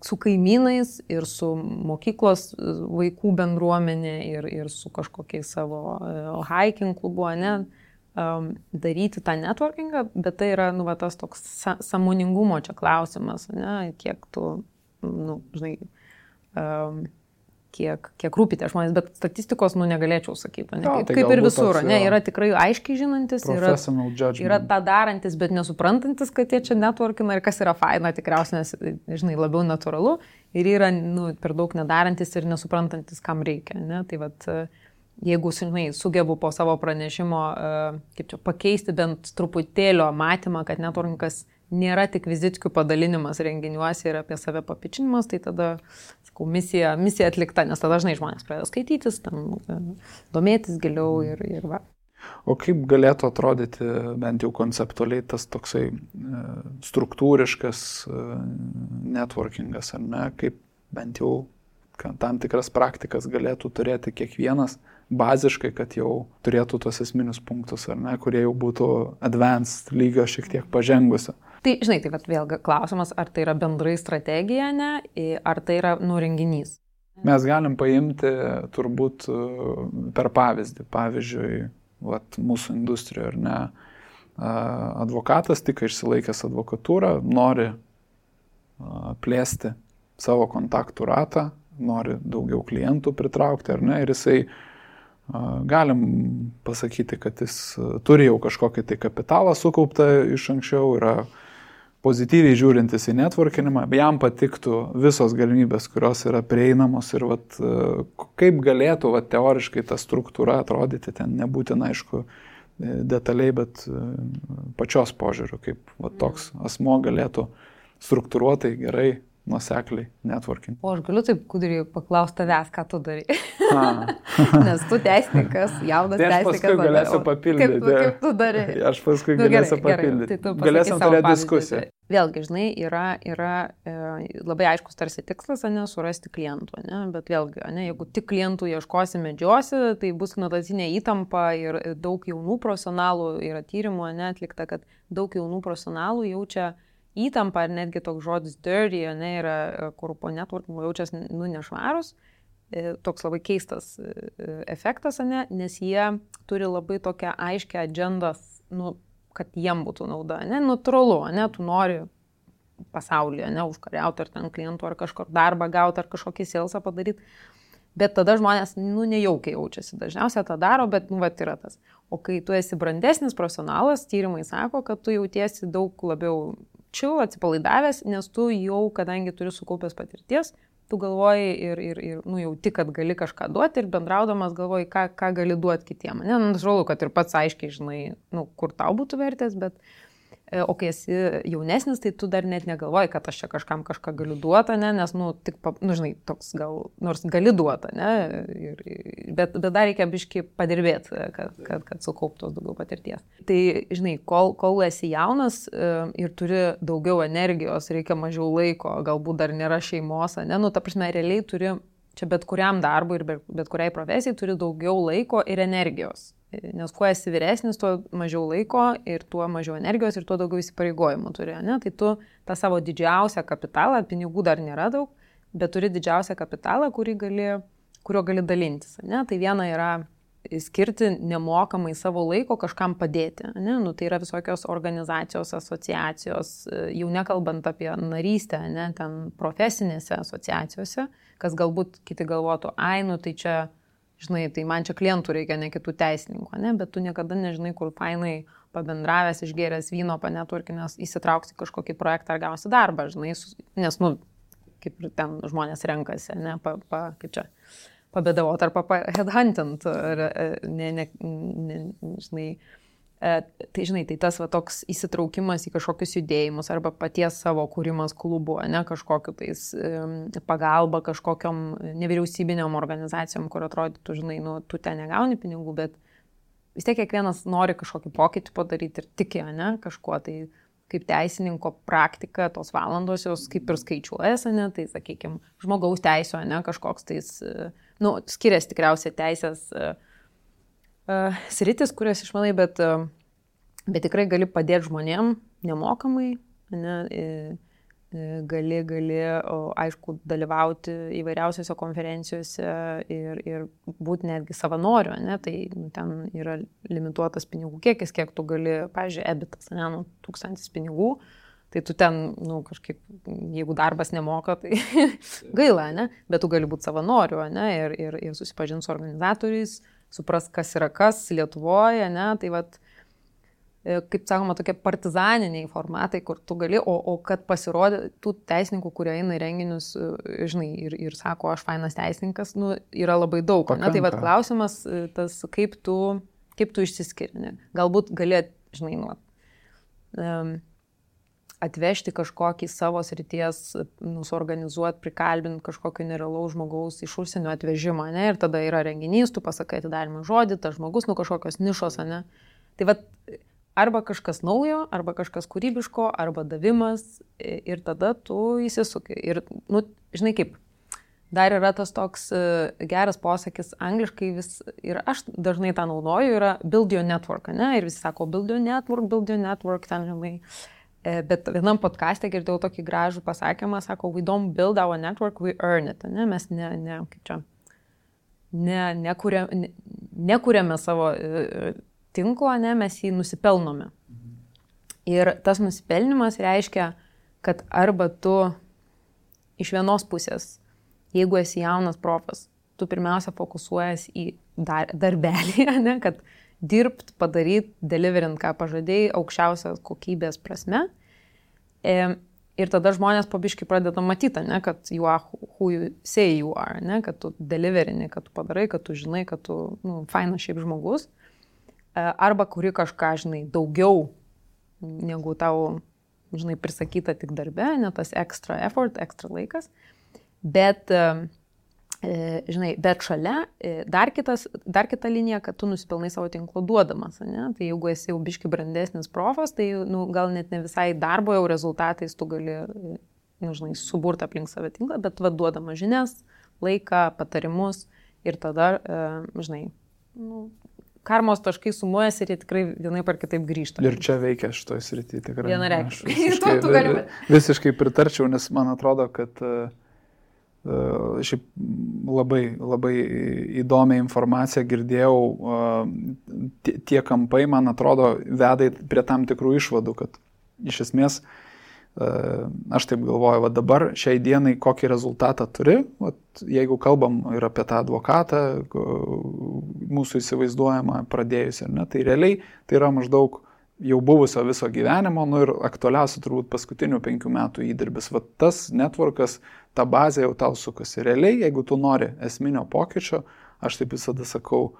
Speaker 3: su kaimynais, ir su mokyklos vaikų bendruomenė, ir su kažkokiais savo hiking klubu, daryti tą networkingą, bet tai yra, tas toks sąmoningumo čia klausimas, kiek tu žinai, kiek rūpi tie žmonės, bet statistikos, negalėčiau sakyti, kaip ir visur, yra tikrai aiškiai žinantis, yra tą darantis, bet nesuprantantis, kad jie čia networkina ir kas yra faina, tikriausiai, nes, žinai, labiau natūralu, ir yra, per daug nedarantis ir nesuprantantis, kam reikia, tai vat, jeigu, žinai, sugebu po savo pranešimo, kaip čia, pakeisti bent truputėlio matymą, kad networkingas nėra tik vizitkių padalinimas renginiuose ir apie save papičinimas, tai tada, sakau, misija atlikta, nes tada dažnai žmonės pradeda skaitytis, domėtis giliau ir va.
Speaker 2: O kaip galėtų atrodyti bent jau konceptualiai tas toksai struktūriškas networkingas, ar ne? Kaip bent jau tam tikras praktikas galėtų turėti kiekvienas baziškai, kad jau turėtų tos esminius punktus, ar ne, kurie jau būtų advanced lygio šiek tiek pažengusi.
Speaker 3: Tai, žinai, tai vėlgi klausimas, ar tai yra bendrai strategija, ar tai yra renginys.
Speaker 2: Mes galim paimti turbūt per pavyzdį. Pavyzdžiui, mūsų industrijoje, ar ne, advokatas tik išsilaikęs advokatūrą, nori plėsti savo kontaktų ratą, nori daugiau klientų pritraukti, ar ne, ir jisai galim pasakyti, kad jis turi jau kažkokį tai kapitalą sukauptą iš anksčiau, yra pozityviai žiūrintis į networkinimą, jam patiktų visos galimybės, kurios yra prieinamos ir kaip galėtų teoriškai ta struktūra atrodyti, ten nebūtina, aišku, detaliai, bet pačios požiūriu, kaip toks asmo galėtų struktūruotai, gerai, nuosekliai networking.
Speaker 3: O aš galiu taip kudriai paklausti tavęs, ką tu darai. Nes tu teisininkas, jaunas teisininkas.
Speaker 2: Aš paskui galėsiu papildyti.
Speaker 3: Kaip tu darai?
Speaker 2: Aš paskui galėsiu papildyti. Galėsim turėti diskusiją.
Speaker 3: Vėlgi, žinai, yra labai aiškus tarsi tikslas, surasti klientų, bet vėlgi, jeigu tik klientų ieškosi, medžiosi, tai bus nuolatinė įtampa ir daug jaunų profesionalų, yra tyrimų atlikta, kad daug jaunų profesionalų jaučia įtampa, ar netgi toks žodis dirty, yra, kur po networkingo jaučiasi nešvarus, toks labai keistas efektas, nes jie turi labai tokią aiškę agendą, kad jiem būtų nauda, natūralu, tu nori pasaulyje, užkariauti ar ten klientų, ar kažkur darbą gauti, ar kažkokį salesą padaryti, bet tada žmonės, nejaukiai jaučiasi, dažniausiai tą daro, bet, yra tas. O kai tu esi brandesnis profesionalas, tyrimai sako, kad tu jautiesi daug labiau atsipalaidavęs, nes tu jau, kadangi turi sukaupęs patirties, tu galvoji ir jauti, kad gali kažką duoti ir bendraudamas galvoji, ką gali duoti kitiem. Natūralu, kad ir pats aiškiai žinai, kur tau būtų vertės, bet O kai esi jaunesnis, tai tu dar net negalvoji, kad aš čia kažkam kažką galiu duoti, ne? Nes, tik, žinai, toks gal, nors gali duoti, ne? Bet dar reikia biškai padirbėti, kad sukauptos daugiau patirties. Tai, žinai, kol esi jaunas ir turi daugiau energijos, reikia mažiau laiko, galbūt dar nėra šeimos, ne? Ta prasme, realiai turi, čia bet kuriam darbui ir bet kuriai profesijai turi daugiau laiko ir energijos. Nes kuo esi vyresnis, tuo mažiau laiko ir tuo mažiau energijos ir tuo daugiau įsipareigojimų turi. Ne? Tai tu tą savo didžiausią kapitalą, pinigų dar nėra daug, bet turi didžiausią kapitalą, kuriuo gali dalintis. Ne? Tai viena yra skirti nemokamai savo laiko kažkam padėti. Ne? Tai yra visokios organizacijos, asociacijos, jau nekalbant apie narystę, ne? Ten profesinėse asociacijose, kas galbūt kiti galvotų, tai čia žinai, tai man čia klientų reikia, ne kitų teisininkų, ne? Bet tu niekada nežinai, kur fainai pabendravęs, išgėręs vyno, panetworkinęs, įsitrauksi kažkokį projektą ar gausi darbą, žinai, nes, kaip ir ten žmonės renkasi, ne, kaip čia, pabėdavot ar headhuntant, žinai. Tai, žinai, tai tas toks įsitraukimas į kažkokius judėjimus arba paties savo kūrimas klubų, ne, kažkokiu tais pagalba kažkokiom nevyriausybiniam organizacijom, kur atrodytų, žinai, tu ten negauni pinigų, bet vis tiek kiekvienas nori kažkokį pokytį padaryti ir tiki, ne, kažkuo. Tai kaip teisininko praktika, tos valandos jos kaip ir skaičiuojasi, ne, tai, sakykime, žmogaus teisio, ne, kažkoks tais, skiriasi tikriausiai teisės sritis, kurias išmanai, bet tikrai gali padėti žmonėm nemokamai, ne, gali, aišku, dalyvauti įvairiausiose konferencijose ir būti netgi savanoriu, ne, tai ten yra limituotas pinigų kiekis, kiek tu gali, pavyzdžiui, EBITas, ne, 1000 pinigų, tai tu ten, kažkaip, jeigu darbas nemoka, tai gaila, ne, bet tu gali būti savanoriu, ne, ir susipažinti su organizatoriais, supras, kas yra kas Lietuvoje, ne, tai kaip sakoma, tokie partizaniniai formatai, kur tu gali, o kad pasirodė tų teisininkų, kurie eina į renginius, žinai, ir sako, aš fainas teisininkas, yra labai daug, ne, tai klausimas tas, kaip tu išsiskiri, ne, galbūt gali, žinai, atvežti kažkokį savo srities, suorganizuoti, prikalbinti kažkokio nerealaus žmogaus iš užsienio atvežimą, ne? Ir tada yra renginys, tu pasakai atidarimą žodį, tas žmogus, kažkokios nišos, ne? Tai arba kažkas naujo, arba kažkas kūrybiško, arba davimas ir tada tu įsisuki. Ir, žinai kaip, dar yra tas toks geras posakis angliškai ir aš dažnai tą naudoju, yra build your network, ne? Ir visi sako build your network, ten žinai. Bet vienam podcaste girdėjau tokį gražų pasakymą, sako, we don't build our network, we earn it. Ne? Mes nekuriame savo tinklo, ne? Mes jį nusipelnome. Ir tas nusipelnimas reiškia, kad arba tu iš vienos pusės, jeigu esi jaunas profas, tu pirmiausia fokusuojas į darbelį, ne? Kad dirbt, padaryti, deliverint, ką pažadėjai, aukščiausios kokybės prasme. Ir tada žmonės po biškį pradeda matyti, ne, kad you are who you say you are, ne, kad tu deliverini, kad tu padarai, kad tu žinai, kad tu fainas šiaip žmogus. Arba kuri kažką, žinai, daugiau negu tau, žinai, prisakyta tik darbe, ne tas extra effort, extra laikas. Bet žinai, bet šalia dar kita linija, kad tu nusipelnai savo tinklo duodamas, ne? Tai jeigu esi jau biški brandesnis profas, tai gal net ne visai darbo jau rezultatais tu gali, žinai, suburti aplink save tinklą, bet duodamas žinias, laiką, patarimus ir tada, žinai, karmos taškai sumuojasi ir jie tikrai vienaip ar kitaip grįžta.
Speaker 2: Ir čia veikia šitoj srity tikrai.
Speaker 3: Vienareikšmiai.
Speaker 2: Visiškai pritarčiau, nes man atrodo, kad šiaip labai įdomią informaciją girdėjau, tie kampai, man atrodo, veda prie tam tikrų išvadų, kad iš esmės, aš taip galvoju, dabar šiai dienai kokį rezultatą turi, jeigu kalbam ir apie tą advokatą, mūsų įsivaizduojamą pradėjus, ar ne, tai realiai tai yra maždaug jau buvusio viso gyvenimo, ir aktualiausia turbūt paskutinių 5 metų įdirbis. Tas networkas, ta bazė jau tau sukasi. Realiai, jeigu tu nori esminio pokyčio, aš taip visada sakau,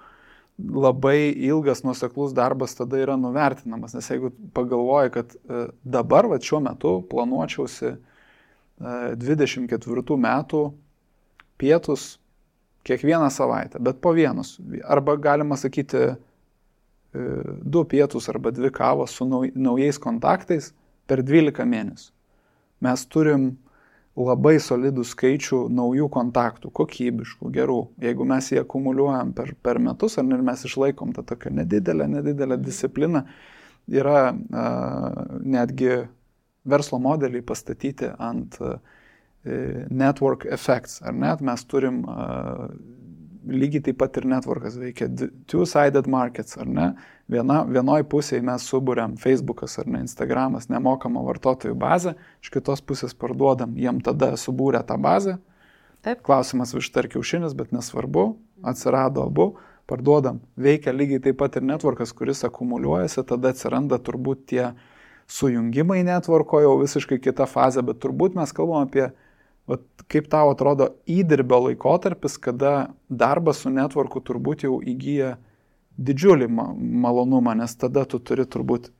Speaker 2: labai ilgas nuoseklus darbas tada yra nuvertinamas, nes jeigu pagalvoji, kad dabar, va, šiuo metu planuočiausi 24 metų pietus kiekvieną savaitę, bet po vienus, arba galima sakyti 2 pietus arba 2 kavos su naujais kontaktais per 12 mėnesių. Mes turim labai solidų skaičių naujų kontaktų, kokybiškų, gerų. Jeigu mes jį akumuliuojam per metus, ar mes išlaikom tą tokią nedidelę discipliną, yra netgi verslo modeliai pastatyti ant network effects, ar net mes turim lygiai taip pat ir networkas veikia two-sided markets, ar ne? Vienoj pusėje mes suburiam Facebookas ar ne, Instagramas, nemokamą vartotojų bazę, iš kitos pusės parduodam, jiem tada subūrė tą bazę.
Speaker 3: Taip.
Speaker 2: Klausimas višta ar kiaušinis, bet nesvarbu, atsirado abu, parduodam. Veikia lygiai taip pat ir networkas, kuris akumuliuojasi, tada atsiranda turbūt tie sujungimai networko, jau visiškai kita fazė, bet turbūt mes kalbam apie kaip tau atrodo įdirbio laikotarpis, kada darbas su networku turbūt jau įgyja didžiulį malonumą, nes tada tu turi turbūt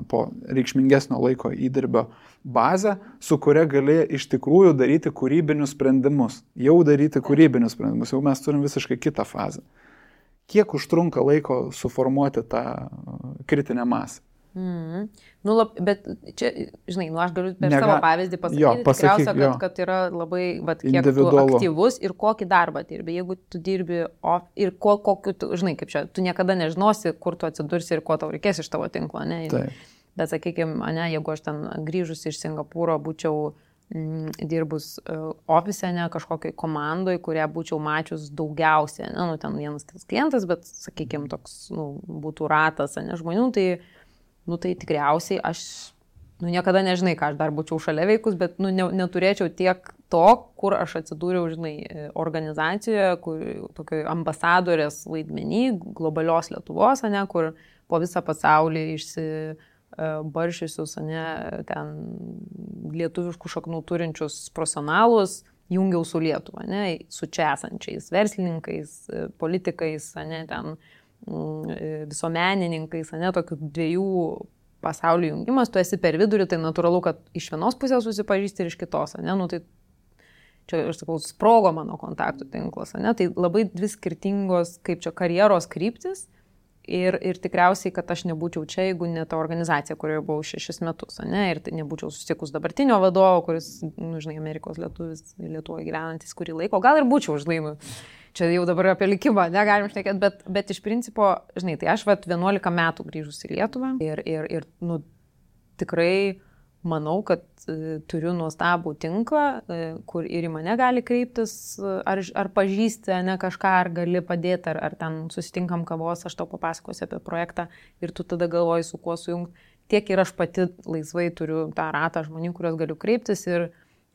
Speaker 2: po reikšmingesnio laiko įdirbio bazę, su kuria gali iš tikrųjų daryti kūrybinius sprendimus. Jau daryti kūrybinius sprendimus, jau mes turim visiškai kitą fazę. Kiek užtrunka laiko suformuoti tą kritinę masę?
Speaker 3: Bet čia, žinai, aš galiu per savo pavyzdį pasakyti, tikriausia, kad yra labai, kiek tu aktyvus ir kokį darbą dirbi. Jeigu tu dirbi ir kokiu, žinai, kaip čia, tu niekada nežinosi, kur tu atsidursi ir ko tau reikės iš tavo tinklo, ne? Bet, sakykime, jeigu aš ten grįžus iš Singapūro būčiau dirbus ofise, ne, kažkokiai komandoj, kurią būčiau mačius daugiausiai, ne, ten vienas kitas klientas, bet, sakykime, toks, būtų ratas, ne, žmonių, tai tikriausiai aš, niekada nežinai, ką aš dar būčiau šalia veikus, bet, neturėčiau tiek to, kur aš atsidūriau, žinai, organizacijoje, kur tokio ambasadorės vaidmenį, globalios Lietuvos, ne, kur po visą pasaulį išsibaršiusius, ne, ten lietuviškų šaknų turinčius profesionalus jungiau su Lietuva, ne, su čia esančiais verslininkais, politikais, ne, ten visuomenininkais, ne, tokių 2 pasaulių jungimas, tu esi per vidurį, tai natūralu, kad iš vienos pusės susipažįsti ir iš kitos, ne, tai čia, aš sakau, sprogo mano kontaktų tinklas, ne, tai labai 2 skirtingos, kaip čia, karjeros kryptis ir tikriausiai, kad aš nebūčiau čia, jeigu ne ta organizacija, kurioje buvau 6 metus, ne, ir tai nebūčiau susitikus dabartinio vadovo, kuris, žinai, Amerikos lietuvis, Lietuvoje gyvenantis kurį laiko, gal ir būčiau, žinai, čia jau dabar apie likimą negalim šnekėti, bet iš principo, žinai, tai aš 11 metų grįžus į Lietuvą ir tikrai manau, kad turiu nuostabų tinklą, kur ir į mane gali kreiptis, ar pažįsti, ne, kažką, ar gali padėti, ar ten susitinkam kavos, aš tau papasakosiu apie projektą ir tu tada galvoji, su kuo sujungti. Tiek ir aš pati laisvai turiu tą ratą žmonių, kuriuos galiu kreiptis ir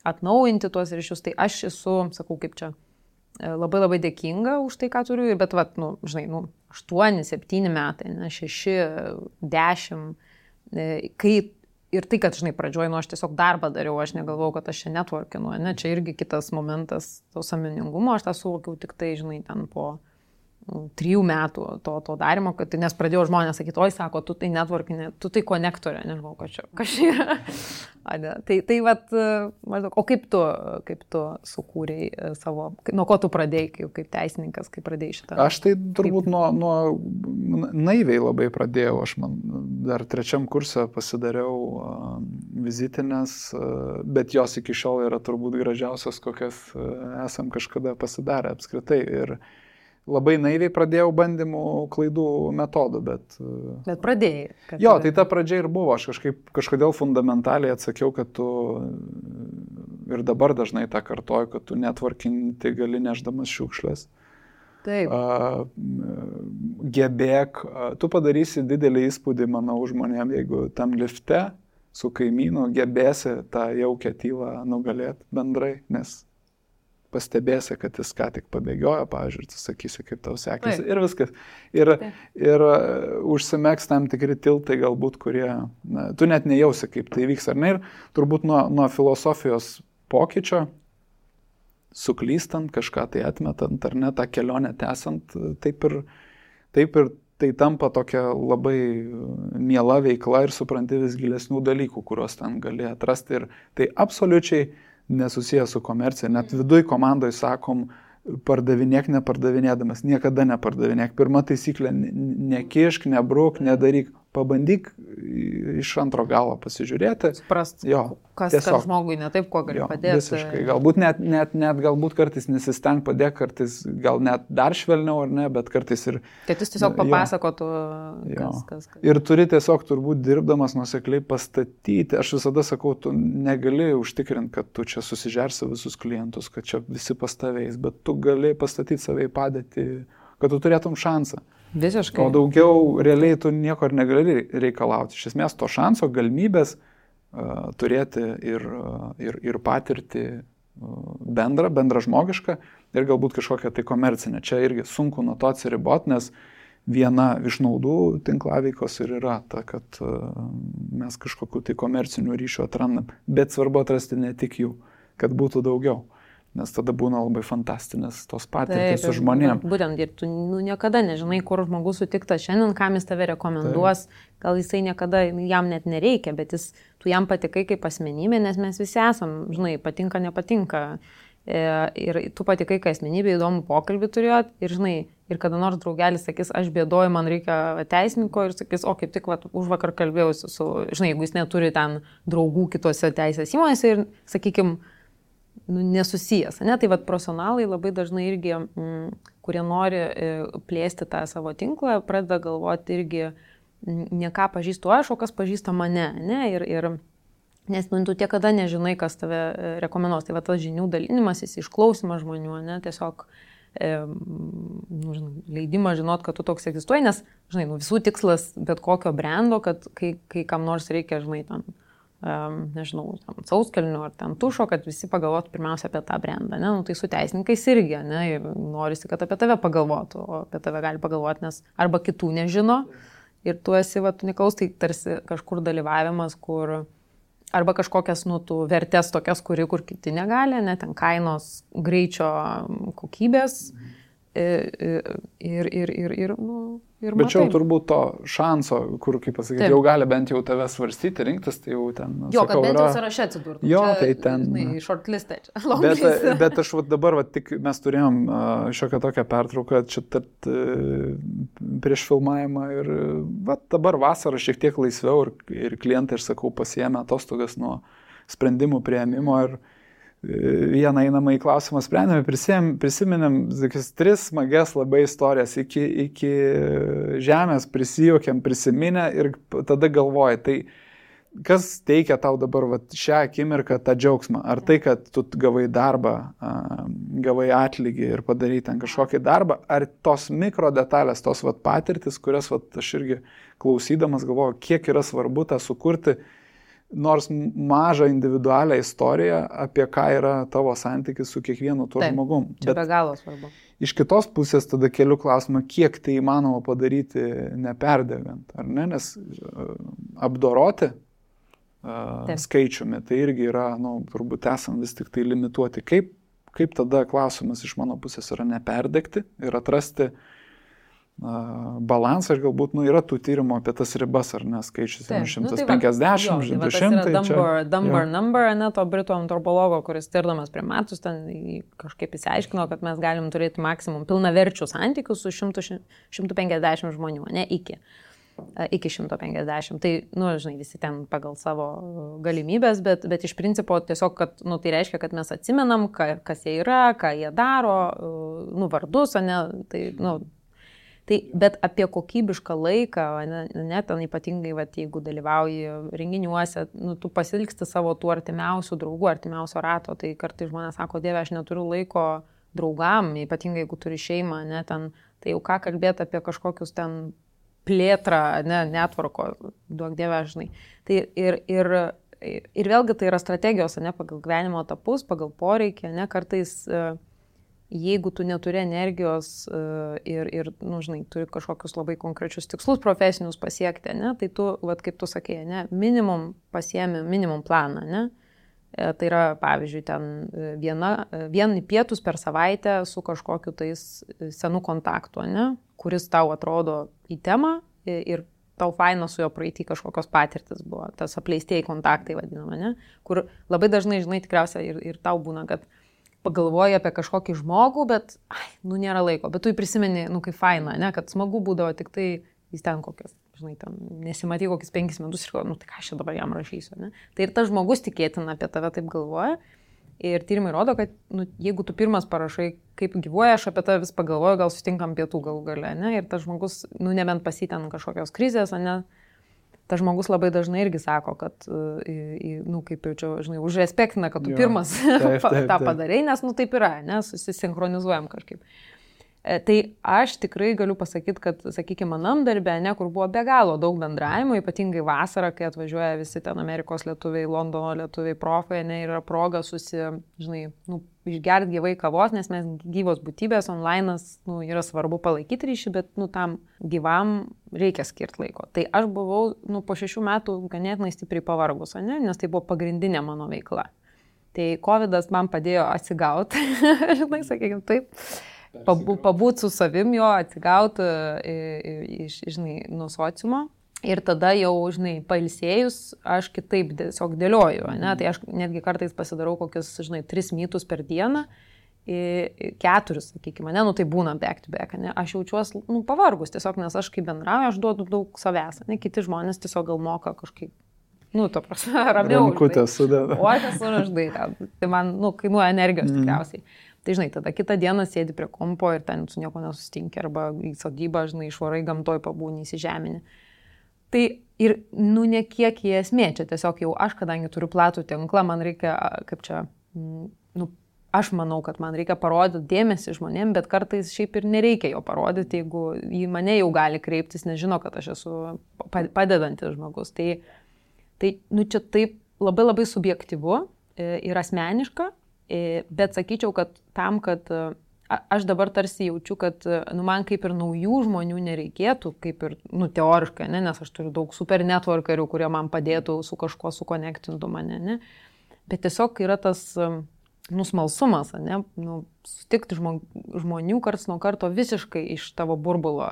Speaker 3: atnaujinti tuos ryšius. Tai aš esu, sakau, kaip čia, labai labai dėkinga už tai, ką turiu, bet, žinai, 8, 7 metai, 6, 10, kai ir tai, kad, žinai, pradžioj, aš tiesiog darbą dariau, aš negalvojau, kad aš čia networkinu, ne, čia irgi kitas momentas to sąmoningumo, aš tą suvokiau tik tai, žinai, ten po 3 metų to darimo, kad, nes pradėjau žmonės sakyti, oi, sako, tu tai networkinė, tu tai konektorė, nežinau, kas čia yra. Tai maždaug, o kaip tu sukūrėjai savo, nuo ko tu pradėjai, kaip teisininkas, kaip pradėjai šitą?
Speaker 2: Aš tai turbūt nuo naiviai labai pradėjau, aš dar 3 kurse pasidariau vizitinės, bet jos iki šiol yra turbūt gražiausios, kokias esam kažkada pasidarę apskritai. Ir labai naiviai pradėjau bandymų klaidų metodų, bet...
Speaker 3: Bet pradėjai.
Speaker 2: Jo, tai ta pradžia ir buvo. Aš kažkodėl fundamentaliai atsakiau, kad tu ir dabar dažnai tą kartoju, kad tu networkinti gali neždamas šiukšlės.
Speaker 3: Taip.
Speaker 2: Gebėk, tu padarysi didelį įspūdį, manau, žmonėm, jeigu tam lifte su kaimynu gebėsi tą jaukę tylą nugalėti bendrai, nes pastebėsi, kad jis ką tik pabėgiojo, pavyzdžiui, tu sakysi, kaip tau sekėsi ir viskas. Ir užsimegs tam tikri tiltai galbūt, kurie, tu net nejausi, kaip tai vyks ar ne. Ir turbūt nuo filosofijos pokyčio, suklystant, kažką tai atmetant ar ne, tą kelionę tęsant, taip ir taip ir tai tampa tokia labai miela veikla ir supranti vis gilesnių dalykų, kuriuos ten gali atrasti. Ir tai absoliučiai nesusijęs su komercija. Net viduj komandoje sakom, pardavinėk nepardavinėdamas, niekada nepardavinėk. Pirma taisyklė, nekišk, nebruk, nedaryk. Pabandyk iš antro galo pasižiūrėti.
Speaker 3: Suprast, kas žmogui ne taip, kuo gali padėti.
Speaker 2: Visiškai. Galbūt net galbūt kartais nesisteng padėk, kartais gal net dar švelniau ar ne, bet kartais ir...
Speaker 3: Kad jis tiesiog papasakotų, kas.
Speaker 2: Ir turi tiesiog turbūt dirbdamas nuosekliai pastatyti. Aš visada sakau, tu negali užtikrinti, kad tu čia susižersi visus klientus, kad čia visi pas tavęs, bet tu gali pastatyti save į padėtį, kad tu turėtum šansą.
Speaker 3: Visiškai.
Speaker 2: O daugiau realiai tu nieko ir negali reikalauti. Iš esmės to šanso, galimybės turėti ir patirtį bendrą žmogišką ir galbūt kažkokią tai komercinę. Čia irgi sunku nuo to atsiriboti, nes viena iš naudų tinklaveikos ir yra ta, kad mes kažkokiu tai komercinių ryšių atrandam. Bet svarbu atrasti ne tik jų, kad būtų daugiau. Nes tada būna labai fantastinės tos patirtys su žmonėm.
Speaker 3: Būtent, ir tu niekada nežinai, kur žmogus sutiktas šiandien, kam jis tave rekomenduos, gal jisai niekada, jam net nereikia, bet tu jam patikai kaip asmenybė, nes mes visi esam, žinai, patinka, nepatinka. Ir tu patikai kaip asmenybė, įdomų pokalbį turėjot ir, žinai, ir kada nors draugelis sakys, aš bėdoju, man reikia teisininko ir sakys, o kaip tik už vakar kalbėjausi su, žinai, jeigu jis neturi ten draugų kitose teisės įmonėse ir, sakykim, nesusijęs. Ne? Tai profesionalai labai dažnai irgi, kurie nori plėsti tą savo tinklą, pradeda galvoti irgi, ne ką pažįstu aš, o kas pažįsta mane. Ne? Nes tu niekada nežinai, kas tave rekomenduos. Tai tas žinių dalinimasis, išklausimas žmonių, ne? Tiesiog leidimą žinot, kad tu toks egzistuoji, nes, žinai, visų tikslas bet kokio brendo, kad kai kam nors reikia, žinai, tam nežinau, sauskelnių ar ten tušo, kad visi pagalvotų pirmiausia apie tą brendą. Ne? Tai su teisininkais irgi, ne? Norisi, kad apie tave pagalvotų, o apie tave gali pagalvoti, nes arba kitų nežino ir tu esi, tu neklaus, tai tarsi kažkur dalyvavimas, kur arba kažkokias, tų vertės tokias, kur kiti negali, ne? Ten kainos, greičio, kokybės ir
Speaker 2: bet čia jau turbūt to šanso, kur, kaip pasakyti, jau gali bent jau tave svarstyti, rinktis, tai jau ten...
Speaker 3: Kad bent jau sąraše atsidurtų.
Speaker 2: Jo, čia, tai ten...
Speaker 3: Shortlistė čia.
Speaker 2: Bet aš dabar, tik mes turėjom šiokią tokią pertrauką čia prieš filmavimą ir dabar vasarą šiek tiek laisviau ir klientai, aš sakau, pasiėmė atostogas nuo sprendimų priėmimo ir vieną einamą į klausimą sprendėme, prisiminėm 3 smagias labai istorijas iki žemės, prisijuokėm, prisiminę ir tada galvoji, tai kas teikia tau dabar šią akimirką tą džiaugsmą? Ar tai, kad tu gavai darbą, gavai atlygį ir padarai ten kažkokį darbą, ar tos mikro detalės, tos patirtis, kurias aš irgi klausydamas galvoju, kiek yra svarbu tą sukurti, nors mažą individualią istoriją, apie ką yra tavo santykis su kiekvienu tuo žmogum.
Speaker 3: Čia be galo svarbu.
Speaker 2: Iš kitos pusės tada keliu klausimą, kiek tai įmanoma padaryti neperdegant, ar ne? Nes apdoroti skaičiumi, tai irgi yra, turbūt esam vis tik tai limituoti. Kaip tada klausimas iš mano pusės yra neperdegti ir atrasti balansą ir galbūt yra tų tyrimų apie tas ribas, ar ne, skaičius 150, 200.
Speaker 3: Number, ne, to britų antropologo, kuris tirdamas primatus, ten kažkaip įsiaiškino, kad mes galim turėti maksimum pilnaverčių santykius su 150 žmonių, ne, iki 150. Tai, žinai, visi ten pagal savo galimybės, bet iš principo tiesiog, kad, tai reiškia, kad mes atsimenam, kas jie yra, ką jie daro, vardus, ne, tai, bet apie kokybišką laiką, ne, ten ypatingai, jeigu dalyvauji renginiuose, tu pasilgsti savo tų artimiausių draugų, artimiausio rato, tai kartais žmonės sako, Dieve, aš neturiu laiko draugam, ypatingai jeigu turi šeimą, ne, ten, tai jau ką kalbėti apie kažkokius ten plėtrą, ne, netvarko, duok Dieve, žinai. Tai ir vėlgi tai yra strategijos, ne, pagal gyvenimo etapus, pagal poreikį, ne, kartais jeigu tu neturi energijos ir žinai, turi kažkokius labai konkrečius tikslus profesinius pasiekti, ne, tai tu, kaip tu sakėjai, ne, minimum pasiemi minimum planą, ne. Tai yra, pavyzdžiui, ten vieni pietus per savaitę su kažkokiu tais senų kontaktu, ne, kuris tau atrodo į temą ir tau faina su jo praeitį kažkokios patirtis buvo, tas apleistieji kontaktai vadinama, ne? Kur labai dažnai, žinai, tikriausiai ir tau būna, kad pagalvoji apie kažkokį žmogų, bet, nėra laiko, bet tu jį prisimeni, kaip faina, ne? Kad smagu būdavo tik tai jis ten kokias, žinai, ten nesimatai kokius 5 metus ir tai ką aš dabar jam rašysiu, ne? Tai ir tas žmogus tikėtina apie tave taip galvoja. Ir tyrimai rodo, kad jeigu tu pirmas parašai, kaip gyvuoja, aš apie tave vis pagalvoju, gal susitinkam pietų galų gale, ne? Ir tas žmogus, nebent pasiten kažkokios krizės, ne? Tas žmogus labai dažnai irgi sako, kad, kaip jau čia, žinai, užrespektina, kad tu pirmas tą padarai, nes, taip yra, ne? Susisinchronizuojam kažkaip. Tai aš tikrai galiu pasakyti, kad, sakykime, manam darbė, ne, kur buvo be galo daug bendravimo, ypatingai vasarą, kai atvažiuoja visi ten Amerikos lietuviai, Londono lietuviai, profai, ne, yra proga išgerti gyvai kavos, nes mes gyvos būtybės, online'as, yra svarbu palaikyti ryšį, bet, tam gyvam reikia skirti laiko. Tai aš buvau, po 6 metų ganėtinai stipriai pavargus, ne, nes tai buvo pagrindinė mano veikla. Tai COVID'as man padėjo atsigauti, žinai, sakykime, taip. Pabūt su savim jo, atsigauti nuo sociumo ir tada jau, pailsėjus, aš kitaip tiesiog dėlioju, ne? Tai aš netgi kartais pasidarau kokius, 3 mytus per dieną, 4, sakykime, ne, tai būna back to back, ne? Aš jaučiuosi, pavargus tiesiog, nes aš kaip bendrauju, aš duodu daug savęs, ne? Kiti žmonės tiesiog gal moka kažkaip, to prasme, ramiau.
Speaker 2: Rankutę sudeda.
Speaker 3: O aš esu raždai, tai man, kainuoja energijos tikriausiai. Tai, tada kitą dieną sėdi prie kompo ir ten su nieko nesusitinki, arba į sodybą, išvarai gamtoj pabūni, įsižemini. Tai ir, ne kiek į esmė, čia tiesiog jau aš, kadangi turiu platų tinklą, man reikia, aš manau, kad man reikia parodyti dėmesį žmonėm, bet kartais šiaip ir nereikia jo parodyti, jeigu į mane jau gali kreiptis, nežino, kad aš esu padedantis žmogus. Tai čia taip labai labai subjektyvu ir asmeniška. Bet sakyčiau, kad tam, kad aš dabar tarsi jaučiu, kad man kaip ir naujų žmonių nereikėtų, kaip ir teoriškai, ne? Nes aš turiu daug super networkerių, kurie man padėtų su kažkuo sukonektintų mane, ne? Bet tiesiog yra tas smalsumas, ne? Sutikti žmonių karts nuo karto visiškai iš tavo burbulo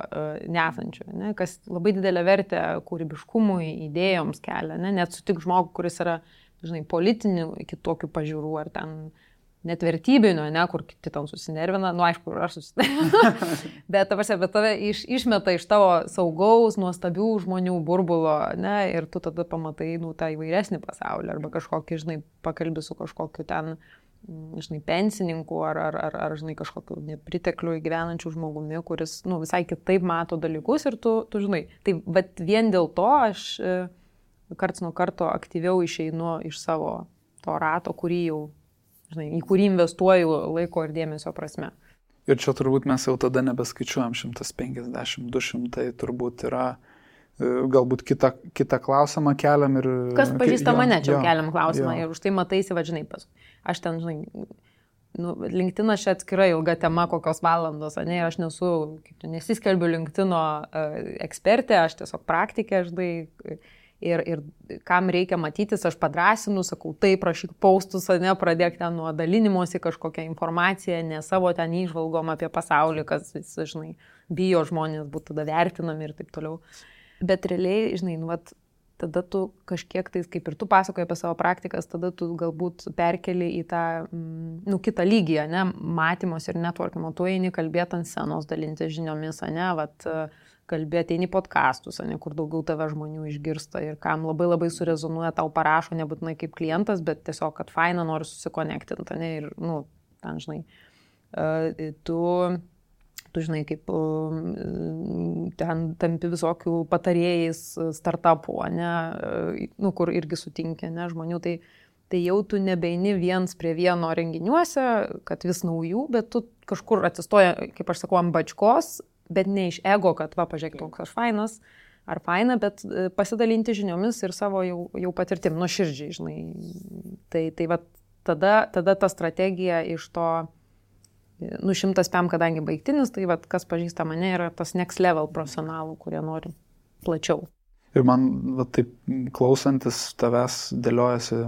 Speaker 3: nesančių, ne? Kas labai didelę vertę kūrybiškumui, idėjoms kelia, ne? Net sutik žmogų, kuris yra, politinių kitokių pažiūrų ar ten net vertybinio, ne, kur kiti tam susinervina, aišku, aš susinervina, bet tave išmeta iš tavo saugaus, nuostabių žmonių burbulo, ne, ir tu tada pamatai, tą įvairesnį pasaulį, arba kažkokį, pakalbi su kažkokiu ten, pensininku, ar kažkokiu nepritekliu gyvenančių žmogumi, kuris, visai kitaip mato dalykus ir tu žinai. Tai, bet vien dėl to aš karts nuo karto aktyviau išeinu iš savo to rato, kurį jau, į kurį investuoju laiko ir dėmesio prasme.
Speaker 2: Ir čia turbūt mes jau tada nebeskaičiuojam 150, 200, turbūt yra, galbūt kitą klausimą keliam ir...
Speaker 3: Kas pažįsta mane, čia keliam klausimą ir už tai mataisi, aš ten, LinkedIn čia atskira ilga tema, kokios valandos, ne, ir aš nesiskelbiu LinkedIno ekspertė, aš tiesiog praktikė, ir kam reikia matytis, aš padrąsinu, sakau, taip, rašyk postus, ne, pradėk ten nuo dalinimosi kažkokią informaciją, ne savo ten įžvalgom apie pasaulį, kas, bijo žmonės būtų tada vertinami ir taip toliau. Bet realiai, tada tu kažkiek tais, kaip ir tu pasakoji apie savo praktikas, tada tu galbūt perkeli į tą, kitą lygį, ne, matymos ir networkimo, tu eini kalbėti ant scenos, dalinti žiniomis, ne, kalbėti, eini podcastus, ne, kur daugiau tave žmonių išgirsta ir kam labai labai surezonuoja, tau parašo, nebūtinai kaip klientas, bet tiesiog, kad faina, nori susikonektinti, ne, ir, ten, tu žinai, kaip ten tampi visokių patarėjais startupų, ne, kur irgi sutinki, ne, žmonių, tai jau tu nebeini viens prie vieno renginiuose, kad vis naujų, bet tu kažkur atsistoja, kaip aš sakau, ant bačkos, bet ne iš ego, kad pažiūrėk, toks aš fainas ar faina, bet pasidalinti žiniomis ir savo jau patirtim, nuoširdžiai, Tai tada ta strategija iš to 100 PM, kadangi baigtinis, tai kas pažįsta mane, yra tas next level profesionalų, kurie nori plačiau.
Speaker 2: Ir man taip klausantis tavęs dėliojasi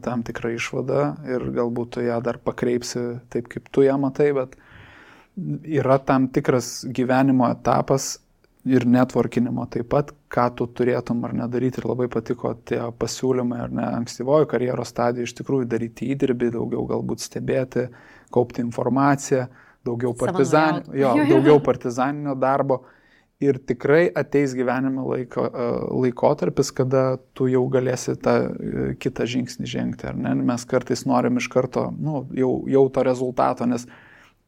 Speaker 2: tam tikrą išvadą ir galbūt tu ją dar pakreipsi taip, kaip tu ją matai, bet yra tam tikras gyvenimo etapas ir networkinimo taip pat, ką tu turėtum ar nedaryti. Ir labai patiko tie pasiūlymai, ar ne, ankstyvojo karjeros stadijoje iš tikrųjų daryti įdirbį, daugiau galbūt stebėti, kaupti informaciją, daugiau partizaninio darbo. Ir tikrai ateis gyvenime laikotarpis, kada tu jau galėsi tą kitą žingsnį žengti, ar ne? Mes kartais norim iš karto jau to rezultato, nes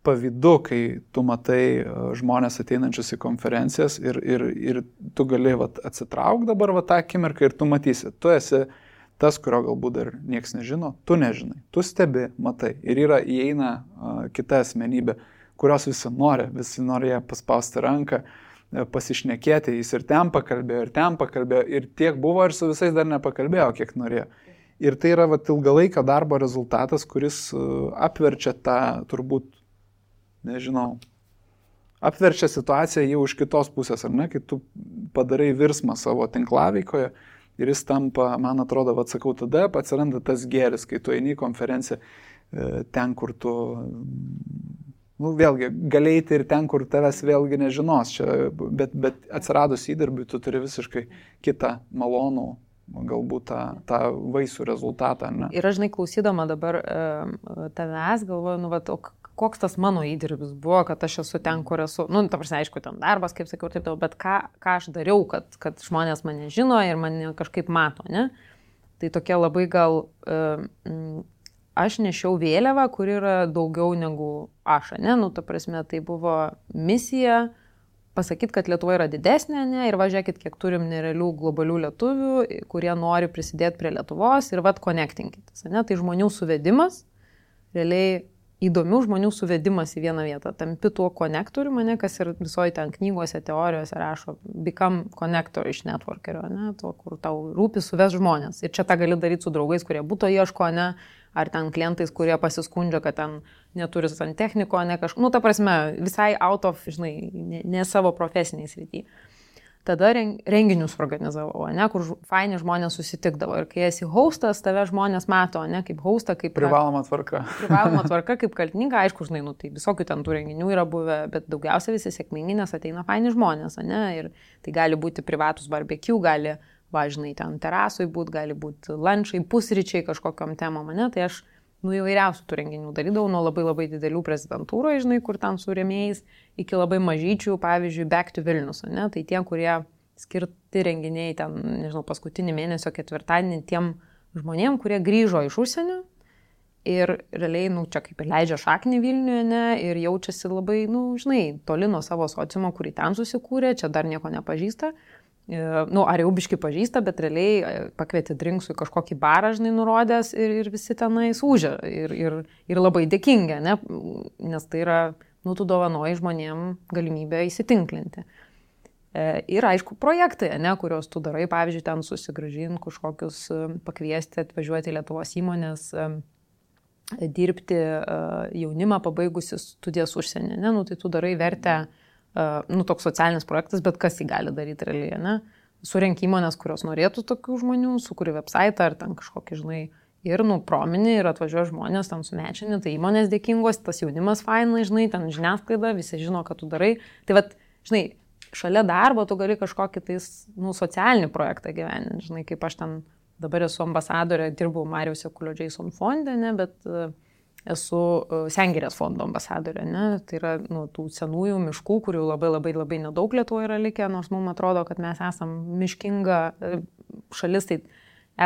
Speaker 2: pavydu, kai tu matai žmonės ateinančius į konferencijas ir tu gali atsitrauk dabar tą akimirką ir tu matysi. Tu esi tas, kurio galbūt dar nieks nežino, tu nežinai. Tu stebi, matai. Ir įeina kita asmenybė, kurios visi nori ją paspausti ranką, pasišnekėti. Jis ir ten pakalbėjo, ir tiek buvo, ir su visais dar nepakalbėjo, kiek norėjo. Ir tai yra ilgalaikio darbo rezultatas, kuris apverčia tą turbūt apverčia situaciją jau iš kitos pusės, ar ne, kai tu padarai virsmą savo tinklaveikoje ir jis tampa, man atrodo, tada atsiranda tas gėris, kai tu eini į konferenciją ten, kur tu, vėlgi, galėti ir ten, kur tavęs vėlgi nežinos, bet atsiradus įdirbiui, tu turi visiškai kitą malonų, galbūt tą vaisių rezultatą, ne?
Speaker 3: Ir aš, klausydama dabar tavęs, galvoju, koks tas mano įdirbis buvo, kad aš esu ten, kur esu. Ta prasme, aišku, ten darbas, kaip sakiau, taip, bet ką aš dariau, kad žmonės mane žino ir mane kažkaip mato, ne? Tai tokia labai gal, aš nešiau vėliavą, kur yra daugiau negu aš, ne? Ta prasme, tai buvo misija pasakyti, kad Lietuva yra didesnė, ne? Ir važiuokit, kiek turim nerealių globalių lietuvių, kurie nori prisidėti prie Lietuvos ir connectingitis, ne? Tai žmonių suvedimas, realiai įdomių žmonių suvedimas į vieną vietą. Tampi tuo konektoriu, kas ir visoje ten knygose, teorijose rašo, become connector iš networkerio, ne? Tuo, kur tau rūpi suves žmonės. Ir čia tą gali daryti su draugais, kurie būto ieško, ne? Ar ten klientais, kurie pasiskundžia, kad ten neturi santechniko, ne kažką. Ta prasme, visai out of, ne savo profesiniai srity. Tada renginius organizavau, ne, kur faini žmonės susitikdavo. Ir kai esi hostas, tave žmonės mato, ne, kaip hostą, kaip...
Speaker 2: Privaloma tvarka.
Speaker 3: Privaloma tvarka, kaip kaltininką, aišku, tai visokių ten tų renginių yra buvę, bet daugiausia visi sėkmingi, nes ateina faini žmonės, ne, ir tai gali būti privatus barbecue, gali, ten terasui būti, gali būti lunchai, pusryčiai kažkokiam temom, ne, tai aš įvairiausių tų renginių darydavau, nuo labai labai didelių prezidentūroje, kur ten su rėmėjais, iki labai mažyčių, pavyzdžiui, Back to Vilnius, ne? Tai tie, kurie skirti renginiai ten, paskutinį mėnesio ketvirtadienį tiem žmonėm, kurie grįžo iš užsienio ir realiai, čia kaip ir leidžia šaknį Vilniuje, ne? Ir jaučiasi labai, toli nuo savo sociumo, kurį ten susikūrė, čia dar nieko nepažįsta. Ar jau biškai pažįsta, bet realiai pakvietė drinksų į kažkokį barą, nurodęs ir visi tenai sūžia ir labai dėkingi, ne? Nes tai yra, tu dovanoji žmonėm galimybę įsitinklinti. Ir aišku, projektai, ne, kurios tu darai, pavyzdžiui, ten susigrąžinti kažkokius, pakviesti, atvažiuoti į Lietuvos įmonės, dirbti jaunimą pabaigusi studijas užsienį, ne? Tai tu darai vertę, toks socialinis projektas, bet kas jį gali daryti realiai, ne? Surenk įmonės, kurios norėtų tokių žmonių, sukuri website ar ten kažkokį, ir promini ir atvažiuoja žmonės ten sumečini, tai įmonės dėkingos, tas jaunimas fainai, ten žiniasklaida, visi žino, ką tu darai. Tai šalia darbo tu gali kažkokį tais, socialinį projektą gyveninti, kaip aš ten dabar esu ambasadorė, dirbau Mariaus Jakulio Jason fonde, ne, bet esu Sengirės fondo ambasadorė, ne? Tai yra tų senųjų miškų, kurių labai labai labai nedaug Lietuvoje yra likę, nors mums atrodo, kad mes esam miškinga šalis, tai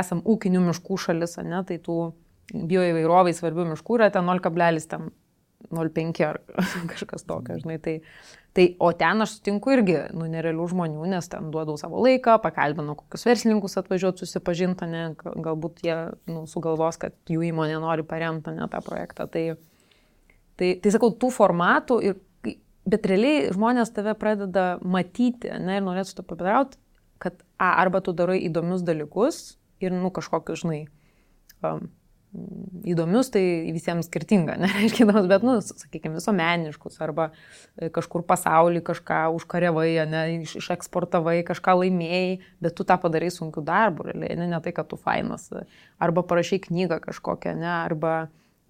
Speaker 3: esam ūkinių miškų šalis, ne? Tai tų bioįvairovai svarbių miškų yra ten 0,05 ar kažkas tokio, o ten aš sutinku irgi nerealių žmonių, nes ten duodau savo laiką, pakalbinu kokius verslininkus atvažiuoti susipažinti, ne, galbūt jie sugalvos, kad jų įmonė nori paremti, ne, tą projektą. Tai sakau, tų formatų, bet realiai žmonės tave pradeda matyti, ne, ir norėtų to pabendrauti, kad arba tu darai įdomius dalykus ir kažkokius, įdomius, tai visiems skirtinga, nereiškia įdomus, bet, sakykime, visuomeniškus, arba kažkur pasauly kažką užkariavai, ne, išeksportavai, kažką laimėjai, bet tu tą padarai sunkiu darbu, realiai, ne tai, kad tu fainas, arba parašai knygą kažkokią, ne, arba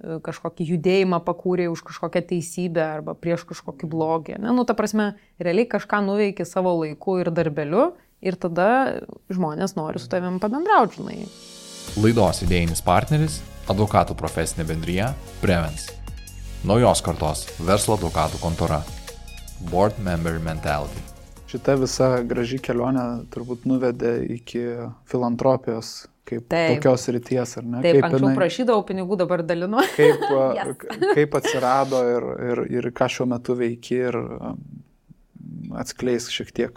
Speaker 3: kažkokį judėjimą pakūrė už kažkokią teisybę arba prieš kažkokį blogį. Ne? Nu, ta prasme, realiai kažką nuveiki savo laiku ir darbeliu ir tada žmonės nori su tavim pabendrauti, žinai.
Speaker 1: Laidos idėjinis partneris – advokatų profesinė bendrija Prevens. Naujos kartos verslo advokatų kontora. Board Member Mentality.
Speaker 2: Šita visa graži kelionė turbūt nuvedė iki filantropijos kaip tokios ryties, ar ne?
Speaker 3: Taip, anksčiau prašydavau pinigų, dabar dalinu.
Speaker 2: Kaip atsirado ir ką šiuo metu veiki ir atskleis šiek tiek,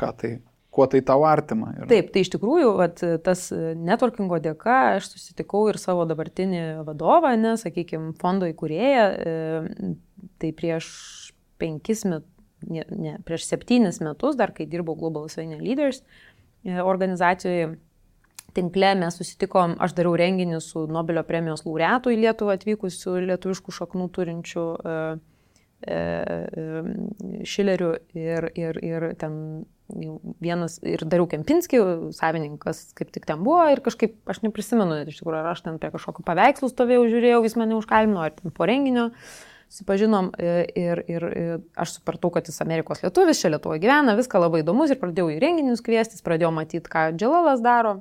Speaker 2: kuo tai tau artima.
Speaker 3: Taip, tai iš tikrųjų, tas networkingo dėka aš susitikau ir savo dabartinį vadovą, sakykime, fondo įkūrėją, tai prieš 7 metus, dar kai dirbau Global Lithuania Leaders organizacijoje, tinkle mes susitikom, aš dariau renginį su Nobelio premijos laureatu į Lietuvą atvykusių lietuviškų šaknų turinčių Šilerių ir ten vienas, ir Dariau Kempinskį, savininkas kaip tik ten buvo ir kažkaip, aš neprisimenu, iš tikrųjų, ar aš ten prie kažkokių paveikslų stovėjau, žiūrėjau, jis mane užkalbino, ar ten po renginio susipažinom ir aš supratau, kad jis Amerikos lietuvis, čia Lietuvoje gyvena, viską labai įdomus ir pradėjau į renginius kviestis, pradėjau matyti, ką Dželalas daro.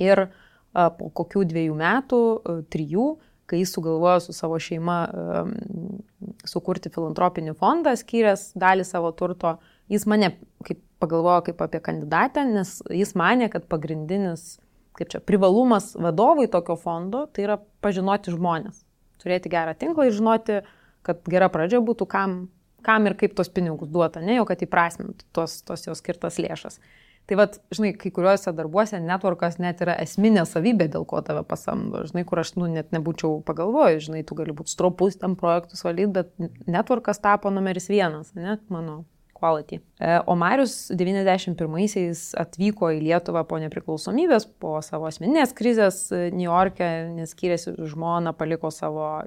Speaker 3: Ir po kokių 2 metų, 3, kai jis sugalvojo su savo šeima sukurti filantropinį fondą, skyręs dalį savo turto, jis mane pagalvojo kaip apie kandidatę, nes jis manė, kad pagrindinis privalumas vadovui tokio fondo tai yra pažinoti žmonės, turėti gerą tinklą ir žinoti, kad gera pradžia būtų kam ir kaip tos pinigus duota, ne jau kad įprasmintų tos jos skirtas lėšas. Tai žinai, kai kuriuose darbuose networkas net yra esminė savybė, dėl ko tave pasamdo. Žinai, kur aš net nebūčiau pagalvojęs, žinai, tu gali būti stropus ten projektus valyti, bet networkas tapo numeris 1, ne, mano quality. O Marius 91-aisiais atvyko į Lietuvą po nepriklausomybės, po savo asmeninės krizės Niujorke, nes skyrėsi žmoną, paliko savo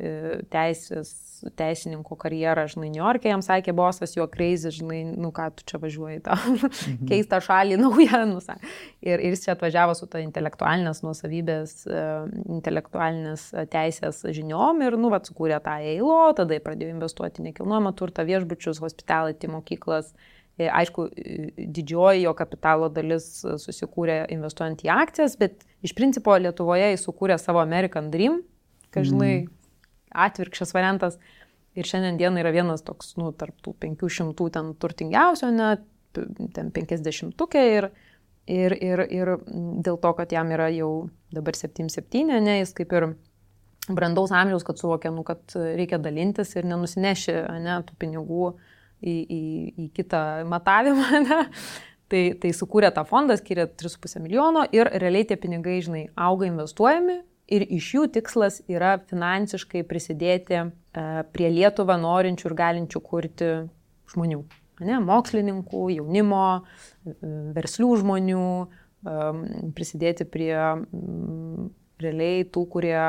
Speaker 3: teisininko karjerą, žinai, Niujorke, jam sakė bosas, jo crazy, žinai, nu ką tu čia važiuoji tą keistą šalį naują, ir jis čia atvažiavo su ta intelektualinės nuosavybės, intelektualinės teisės žiniom ir, sukūrė tą EILO, tada pradėjo investuoti nekilnojamą turtą, viešbučius, hospitality, mokyklas. Aišku, didžioji jo kapitalo dalis susikūrė investuojant į akcijas, bet iš principo Lietuvoje jis sukūrė savo American Dream, kad, žinai, atvirkščias variantas. Ir šiandien dieną yra vienas toks, tarp tų 500 ten turtingiausio, ten 50-ukė ir dėl to, kad jam yra jau dabar 77, jis kaip ir brandaus amžiaus, kad suvokė, kad reikia dalintis ir nenusineši, tų pinigų į kitą matavimą, tai sukūrė tą fondą, skyrė 3,5 milijono ir realiai tie pinigai, žinai, auga investuojami ir iš jų tikslas yra finansiškai prisidėti prie Lietuvą norinčių ir galinčių kurti žmonių, mokslininkų, jaunimo, verslių žmonių, prisidėti prie realiai tų, kurie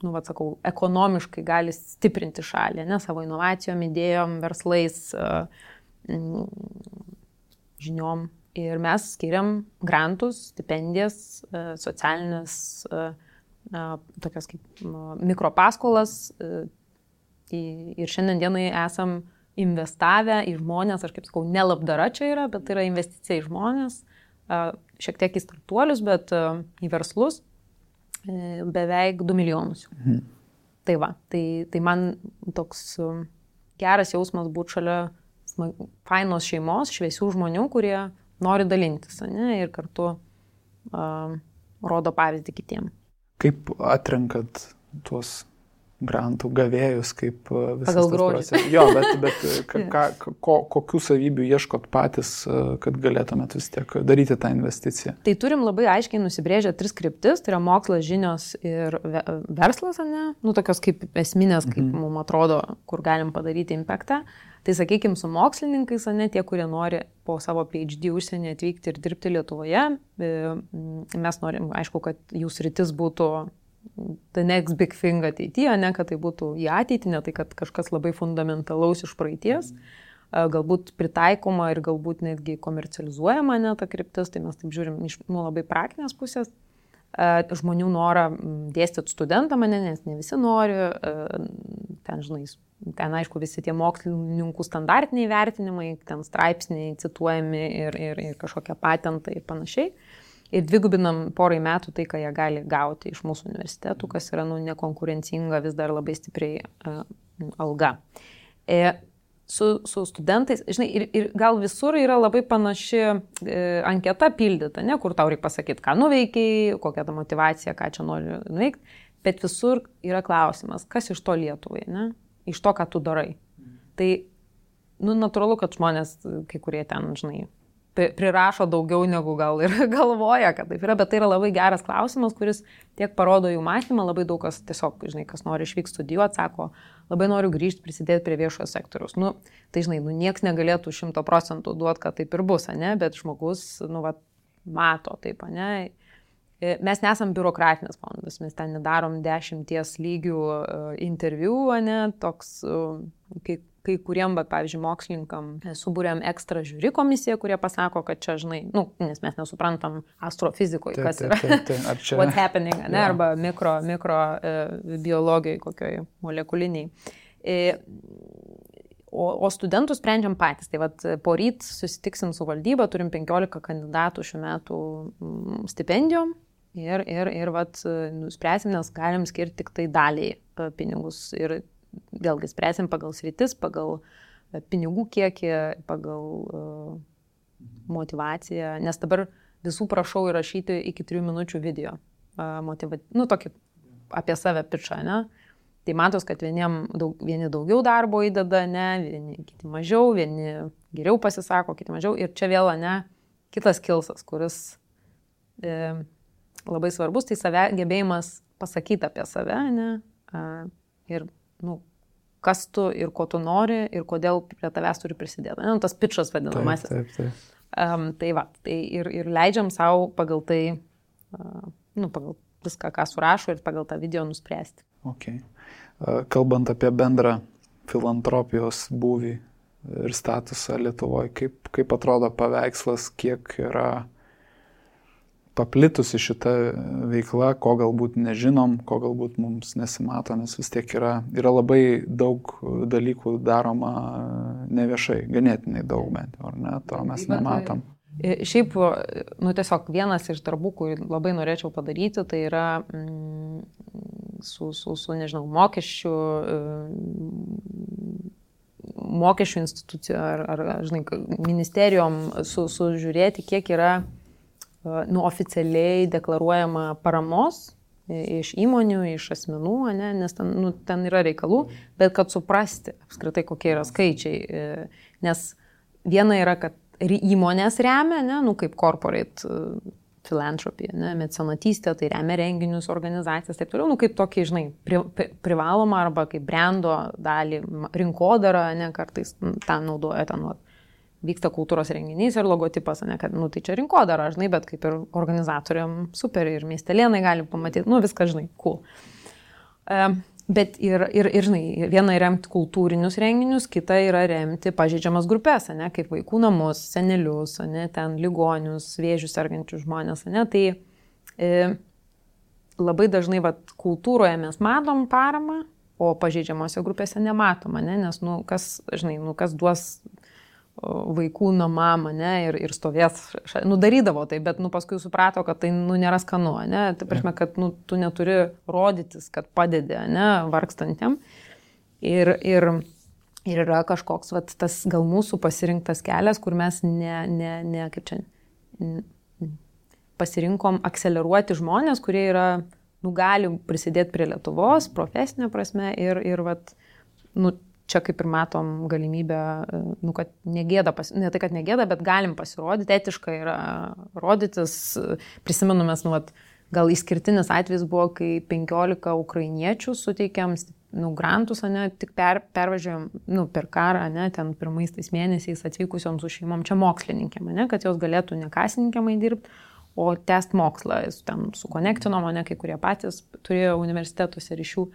Speaker 3: ekonomiškai gali stiprinti šalį, savo inovacijom, idėjom, verslais, žiniom. Ir mes skiriam grantus, stipendijas, socialinės, tokias kaip mikropaskolas. Ir šiandien dienai esam investavę į žmonės, aš kaip sakau, ne labdara čia yra, bet tai yra investicija į žmonės, šiek tiek į startuolius, bet į verslus. Beveik 2 milijonus. Tai va, tai man toks geras jausmas būti šalia fainos šeimos, šviesių žmonių, kurie nori dalintis, ir kartu rodo pavyzdį kitiem.
Speaker 2: Kaip atrenkat tuos grantų gavėjus, kaip visas
Speaker 3: pagal
Speaker 2: tas
Speaker 3: grožį.
Speaker 2: procesas? Jo, bet kokių savybių ieškot patys, kad galėtumėt vis tiek daryti tą investiciją?
Speaker 3: Tai turim labai aiškiai nusibrėžę 3 kryptis, tai yra mokslas, žinios ir verslas, tokios kaip esminės, kaip mums atrodo, kur galim padaryti impactą. Tai sakykime, su mokslininkais, tie, kurie nori po savo PhD užsienį atvykti ir dirbti Lietuvoje, mes norim, aišku, kad jų sritis būtų the next big thing ateityje, kad tai būtų į ateitį, ne tai, kad kažkas labai fundamentalaus iš praeities, galbūt pritaikoma ir galbūt netgi komercializuojama ta kryptis, tai mes taip žiūrim iš labai praktinės pusės. žmonių norą dėstyti studentam, nes ne visi nori, ten, žinai, ten, aišku, visi tie mokslininkų standartiniai vertinimai, ten straipsniai cituojami ir kažkokie patentai ir panašiai. Ir dvigubinam porai metų tai, ką jie gali gauti iš mūsų universitetų, kas yra nekonkurencinga, vis dar labai stipriai alga. Su studentais, žinai, ir gal visur yra labai panaši anketa pildyta, ne, kur tau reikia pasakyti, ką nuveikiai, kokia ta motyvacija, ką čia nori nuveikti, bet visur yra klausimas, kas iš to Lietuvai, ne, iš to, ką tu darai. Tai, natūralu, kad žmonės, kai kurie ten, žinai, prirašo daugiau negu gal ir galvoja, kad taip yra, bet tai yra labai geras klausimas, kuris tiek parodo jų mąstymą, labai daug kas tiesiog, žinai, kas nori išvykti studijuoti, sako, labai noriu grįžti, prisidėti prie viešojo sektoriaus. Tai, žinai, nieks negalėtų 100% duoti, kad taip ir bus, ne, bet žmogus, mato taip, ne. Mes nesam biurokratinis fondas, mes ten nedarom 10 lygių interviu, ne, toks, kai kuriem, pavyzdžiui, mokslininkam subūrėm ekstra žiūri komisiją, kurie pasako, kad čia, žinai, nes mes nesuprantam astrofizikoje, kas yra, what's happening, ne, arba mikro biologijai, kokioj molekuliniai. O studentus sprendžiam patys. Tai vat, poryt susitiksim su valdyba, turim 15 kandidatų šių metų stipendijom ir vat, nuspręsim, nes galim skirti tik tai daliai pinigus ir vėlgi spręsim pagal sritis, pagal pinigų kiekį, pagal motivaciją, nes dabar visų prašau įrašyti iki 3 minučių video, tokį apie save pičą, ne? Tai matos, kad vieni daugiau darbo įdeda, ne, vieni kiti mažiau, vieni geriau pasisako, kiti mažiau ir čia vėl, ne, kitas kilsas, kuris labai svarbus, tai gebėjimas pasakyti apie save, ne, ir kas tu ir ko tu nori ir kodėl prie tavęs turi prisidėti. Tas pitchas vadinamasis.
Speaker 2: Taip.
Speaker 3: Tai va, tai ir leidžiam savo pagal tai, pagal viską, ką surašo ir pagal tą video nuspręsti.
Speaker 2: Okay. Kalbant apie bendrą filantropijos būvį ir statusą Lietuvoje, kaip atrodo paveikslas, kiek yra paplitusi šita veikla, ko galbūt nežinom, ko galbūt mums nesimato, nes vis tiek yra labai daug dalykų daroma neviešai, ganėtinai daug bent, ar ne, to mes nematom.
Speaker 3: Šiaip, tiesiog vienas iš darbų, kurį labai norėčiau padaryti, tai yra nežinau, mokesčių institucijų ar žinai, ministerijom sužiūrėti, kiek yra oficialiai deklaruojama paramos iš įmonių, iš asmenų, ne, nes ten yra reikalų, bet kad suprasti apskritai, kokie yra skaičiai. Nes viena yra, kad įmonės remia, ne, kaip corporate philanthropy, ne, mecenatystė, tai remia renginius, organizacijas, taip toliau, kaip tokį, žinai, privaloma arba kaip brando dalį, rinkodarą, ne, kartais ten naudoja ten vyksta kultūros renginys ir logotipas, ne, kad, tai čia rinkodara, žinai, bet kaip ir organizatoriam super ir miestelėnai gali pamatyti, viską, žinai, cool. Bet ir, žinai, viena yra remti kultūrinius renginius, kita yra remti pažeidžiamas grupės, ne, kaip vaikų namus, senelius, ne, ten ligonius, vėžius sergančius žmonės, ne, tai labai dažnai, kultūroje mes matom paramą, o pažeidžiamose grupėse nematoma, ne, nes, kas, žinai, kas duos vaikų namam, ne, ir stovės, darydavo tai, bet, paskui suprato, kad tai, nėra skanu, ne, tai prasme, kad, tu neturi rodytis, kad padedi, ne, vargstantiem. Ir yra kažkoks, tas gal mūsų pasirinktas kelias, kur mes kaip čia, pasirinkom akceleruoti žmonės, kurie yra, gali prisidėti prie Lietuvos, profesinė prasme, ir čia kaip ir matom galimybę, kad negėda, ne tai, kad negėda, bet galim pasirodyti, etiškai yra rodytis. Prisimenu mes, gal išskirtinis atvejis buvo, kai 15 ukrainiečių suteikėm grantus, ne, tik pervažiuojam, per karą, ne, ten pirmais tais mėnesiais atvykusiom su šeimom, čia mokslininkėm, ne, kad jos galėtų ne kasininkėmai dirbti, o tęsti mokslą. Ten sukonektinom, ne, kai kurie patys turėjo universitetuose ryšių.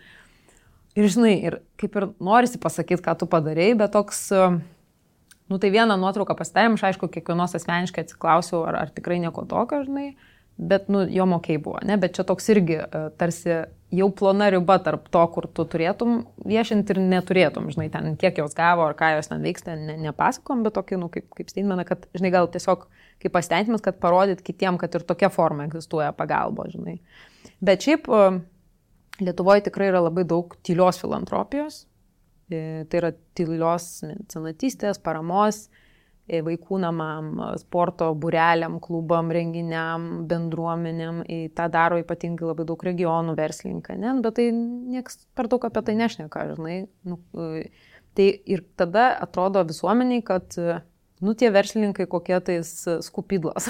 Speaker 3: Ir žinai, ir kaip ir norisi pasakyti, ką tu padarei, bet toks, tai vieną nuotrauką pasidarėm, aš aišku, kiekvienos asmeniškai atsiklausiau, ar tikrai nieko tokio, žinai, bet jo mokiai buvo, ne, bet čia toks irgi tarsi jau plona riba tarp to, kur tu turėtum viešinti ir neturėtum, žinai, ten kiek jos gavo ar ką jos ten vyksta, nepasakom, bet tokį, kaip statementą, kad, žinai, gal tiesiog kaip pasitenkinimas, kad parodyt kitiem, kad ir tokia forma egzistuoja pagalbo, žinai. Bet šiaip Lietuvoje tikrai yra labai daug tylios filantropijos, tai yra tylios mecenatystės, paramos, vaikų namam, sporto būreliam, klubam, renginiam, bendruomenėm. Ta daro ypatingai labai daug regionų verslininkai, ne? Bet tai nieks per daug apie tai nešneka, žinai. Tai ir tada atrodo visuomeniai, kad tie verslininkai kokie tais skupydlos,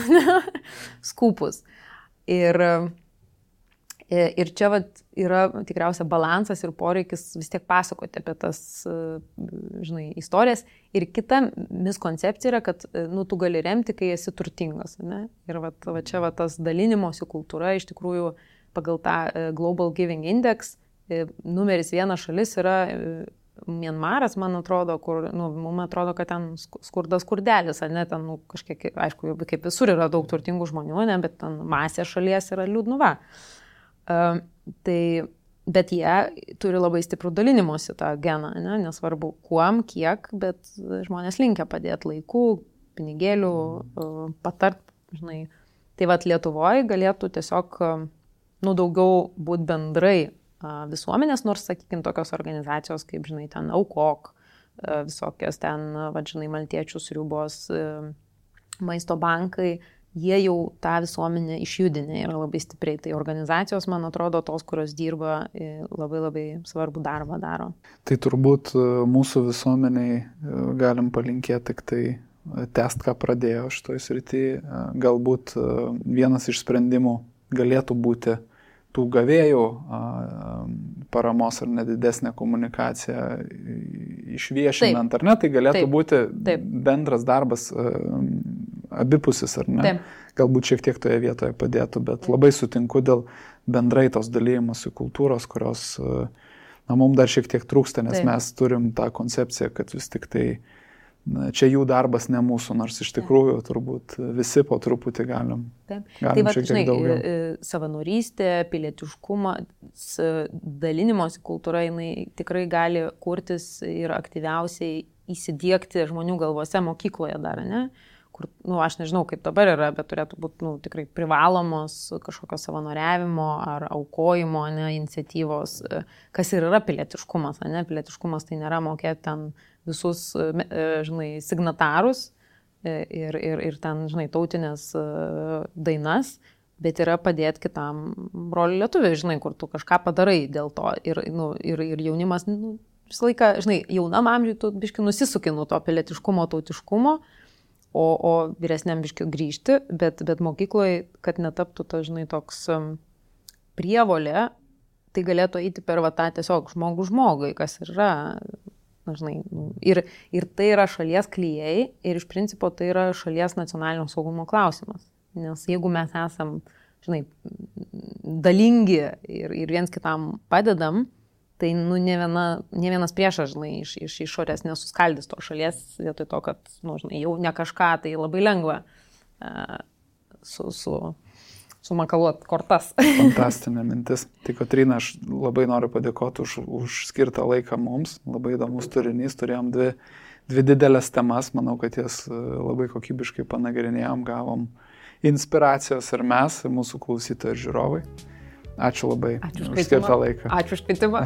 Speaker 3: skupus. Ir čia yra tikriausia balansas ir poreikis vis tiek pasakoti apie tas, žinai, istorijas. Ir kita miskoncepcija yra, kad tu gali remti, kai esi turtingas. Ne? Ir čia tas dalinimosi kultūra iš tikrųjų pagal tą Global Giving Index numeris 1 šalis yra Mianmaras, man atrodo, kur, mums atrodo, kad ten skurdas skurdelis, ne, ten kažkiek, aišku, kaip visur yra daug turtingų žmonių, ne, bet ten masė šalies yra liūdnuva. Bet jie turi labai stiprų dalinimosi tą geną, ne? Nesvarbu kuom, kiek, bet žmonės linkia padėti laikų, pinigėlių, patart, žinai. Tai Lietuvoje galėtų tiesiog, daugiau būti bendrai visuomenės, nors, sakykime, tokios organizacijos, kaip, žinai, ten Aukok, visokios ten, žinai, maltiečių sriubos, maisto bankai, jie jau tą visuomenę išjudinę yra labai stipriai. Tai organizacijos, man atrodo, tos, kurios dirba, labai labai svarbų darbą daro.
Speaker 2: Tai turbūt mūsų visuomeniai galim palinkėti tik tai tęst, ką pradėjo šitoj srity. Galbūt vienas iš sprendimų galėtų būti tų gavėjų paramos ar nedidesnė komunikacija išviešinant, ar ne, tai galėtų būti bendras darbas abipusis, ar ne? Taip. Galbūt šiek tiek toje vietoje padėtų, bet labai sutinku dėl bendrai tos dalymosi kultūros, kurios mums dar šiek tiek trūksta, nes mes turim tą koncepciją, kad vis tik tai čia jų darbas ne mūsų, nors iš tikrųjų turbūt visi po truputį galim šiek tiek daugiau.
Speaker 3: Savanorystė, pilietiškumas, dalinimosi kultūra, jinai tikrai gali kurtis ir aktyviausiai įsidiegti žmonių galvose mokykloje dar, ne? Kur, aš nežinau, kaip dabar yra, bet turėtų būti tikrai privalomos kažkokio savanoriavimo ar aukojimo, ne, iniciatyvos, kas ir yra pilietiškumas, ne? Pilietiškumas tai nėra mokėti ten visus, žinai, signatarus ir ten, žinai, tautinės dainas, bet yra padėti kitam broliui lietuviui, žinai, kur tu kažką padarai dėl to. Ir jaunimas, visą laiką, žinai, jaunam amžiui tu biški nusisuki nuo to pilietiškumo, tautiškumo, o vyresniam biški grįžti, bet mokykloje, kad netaptų ta, žinai, toks prievolė, tai galėtų eiti per tą tiesiog žmogui, kas yra, žinai, ir tai yra šalies klijai ir iš principo tai yra šalies nacionalinio saugumo klausimas. Nes jeigu mes esam, žinai, dalingi ir viens kitam padedam, tai ne vienas priešas, žinai, iš išorės nesuskaldys to šalies, vietoj to, kad, žinai, jau ne kažką, tai labai lengva sumakaluot kortas.
Speaker 2: Fantastinė mintis. Tai Kotryna, aš labai noriu padėkoti už skirtą laiką mums. Labai įdomus turinys. Turėjom dvi didelės temas. Manau, kad jas labai kokybiškai panagrinėjom, gavom inspiracijos ir mes, ir mūsų klausytojai ir žiūrovai. Ačiū labai už skirtą laiką.
Speaker 3: Ačiū už kvietimą.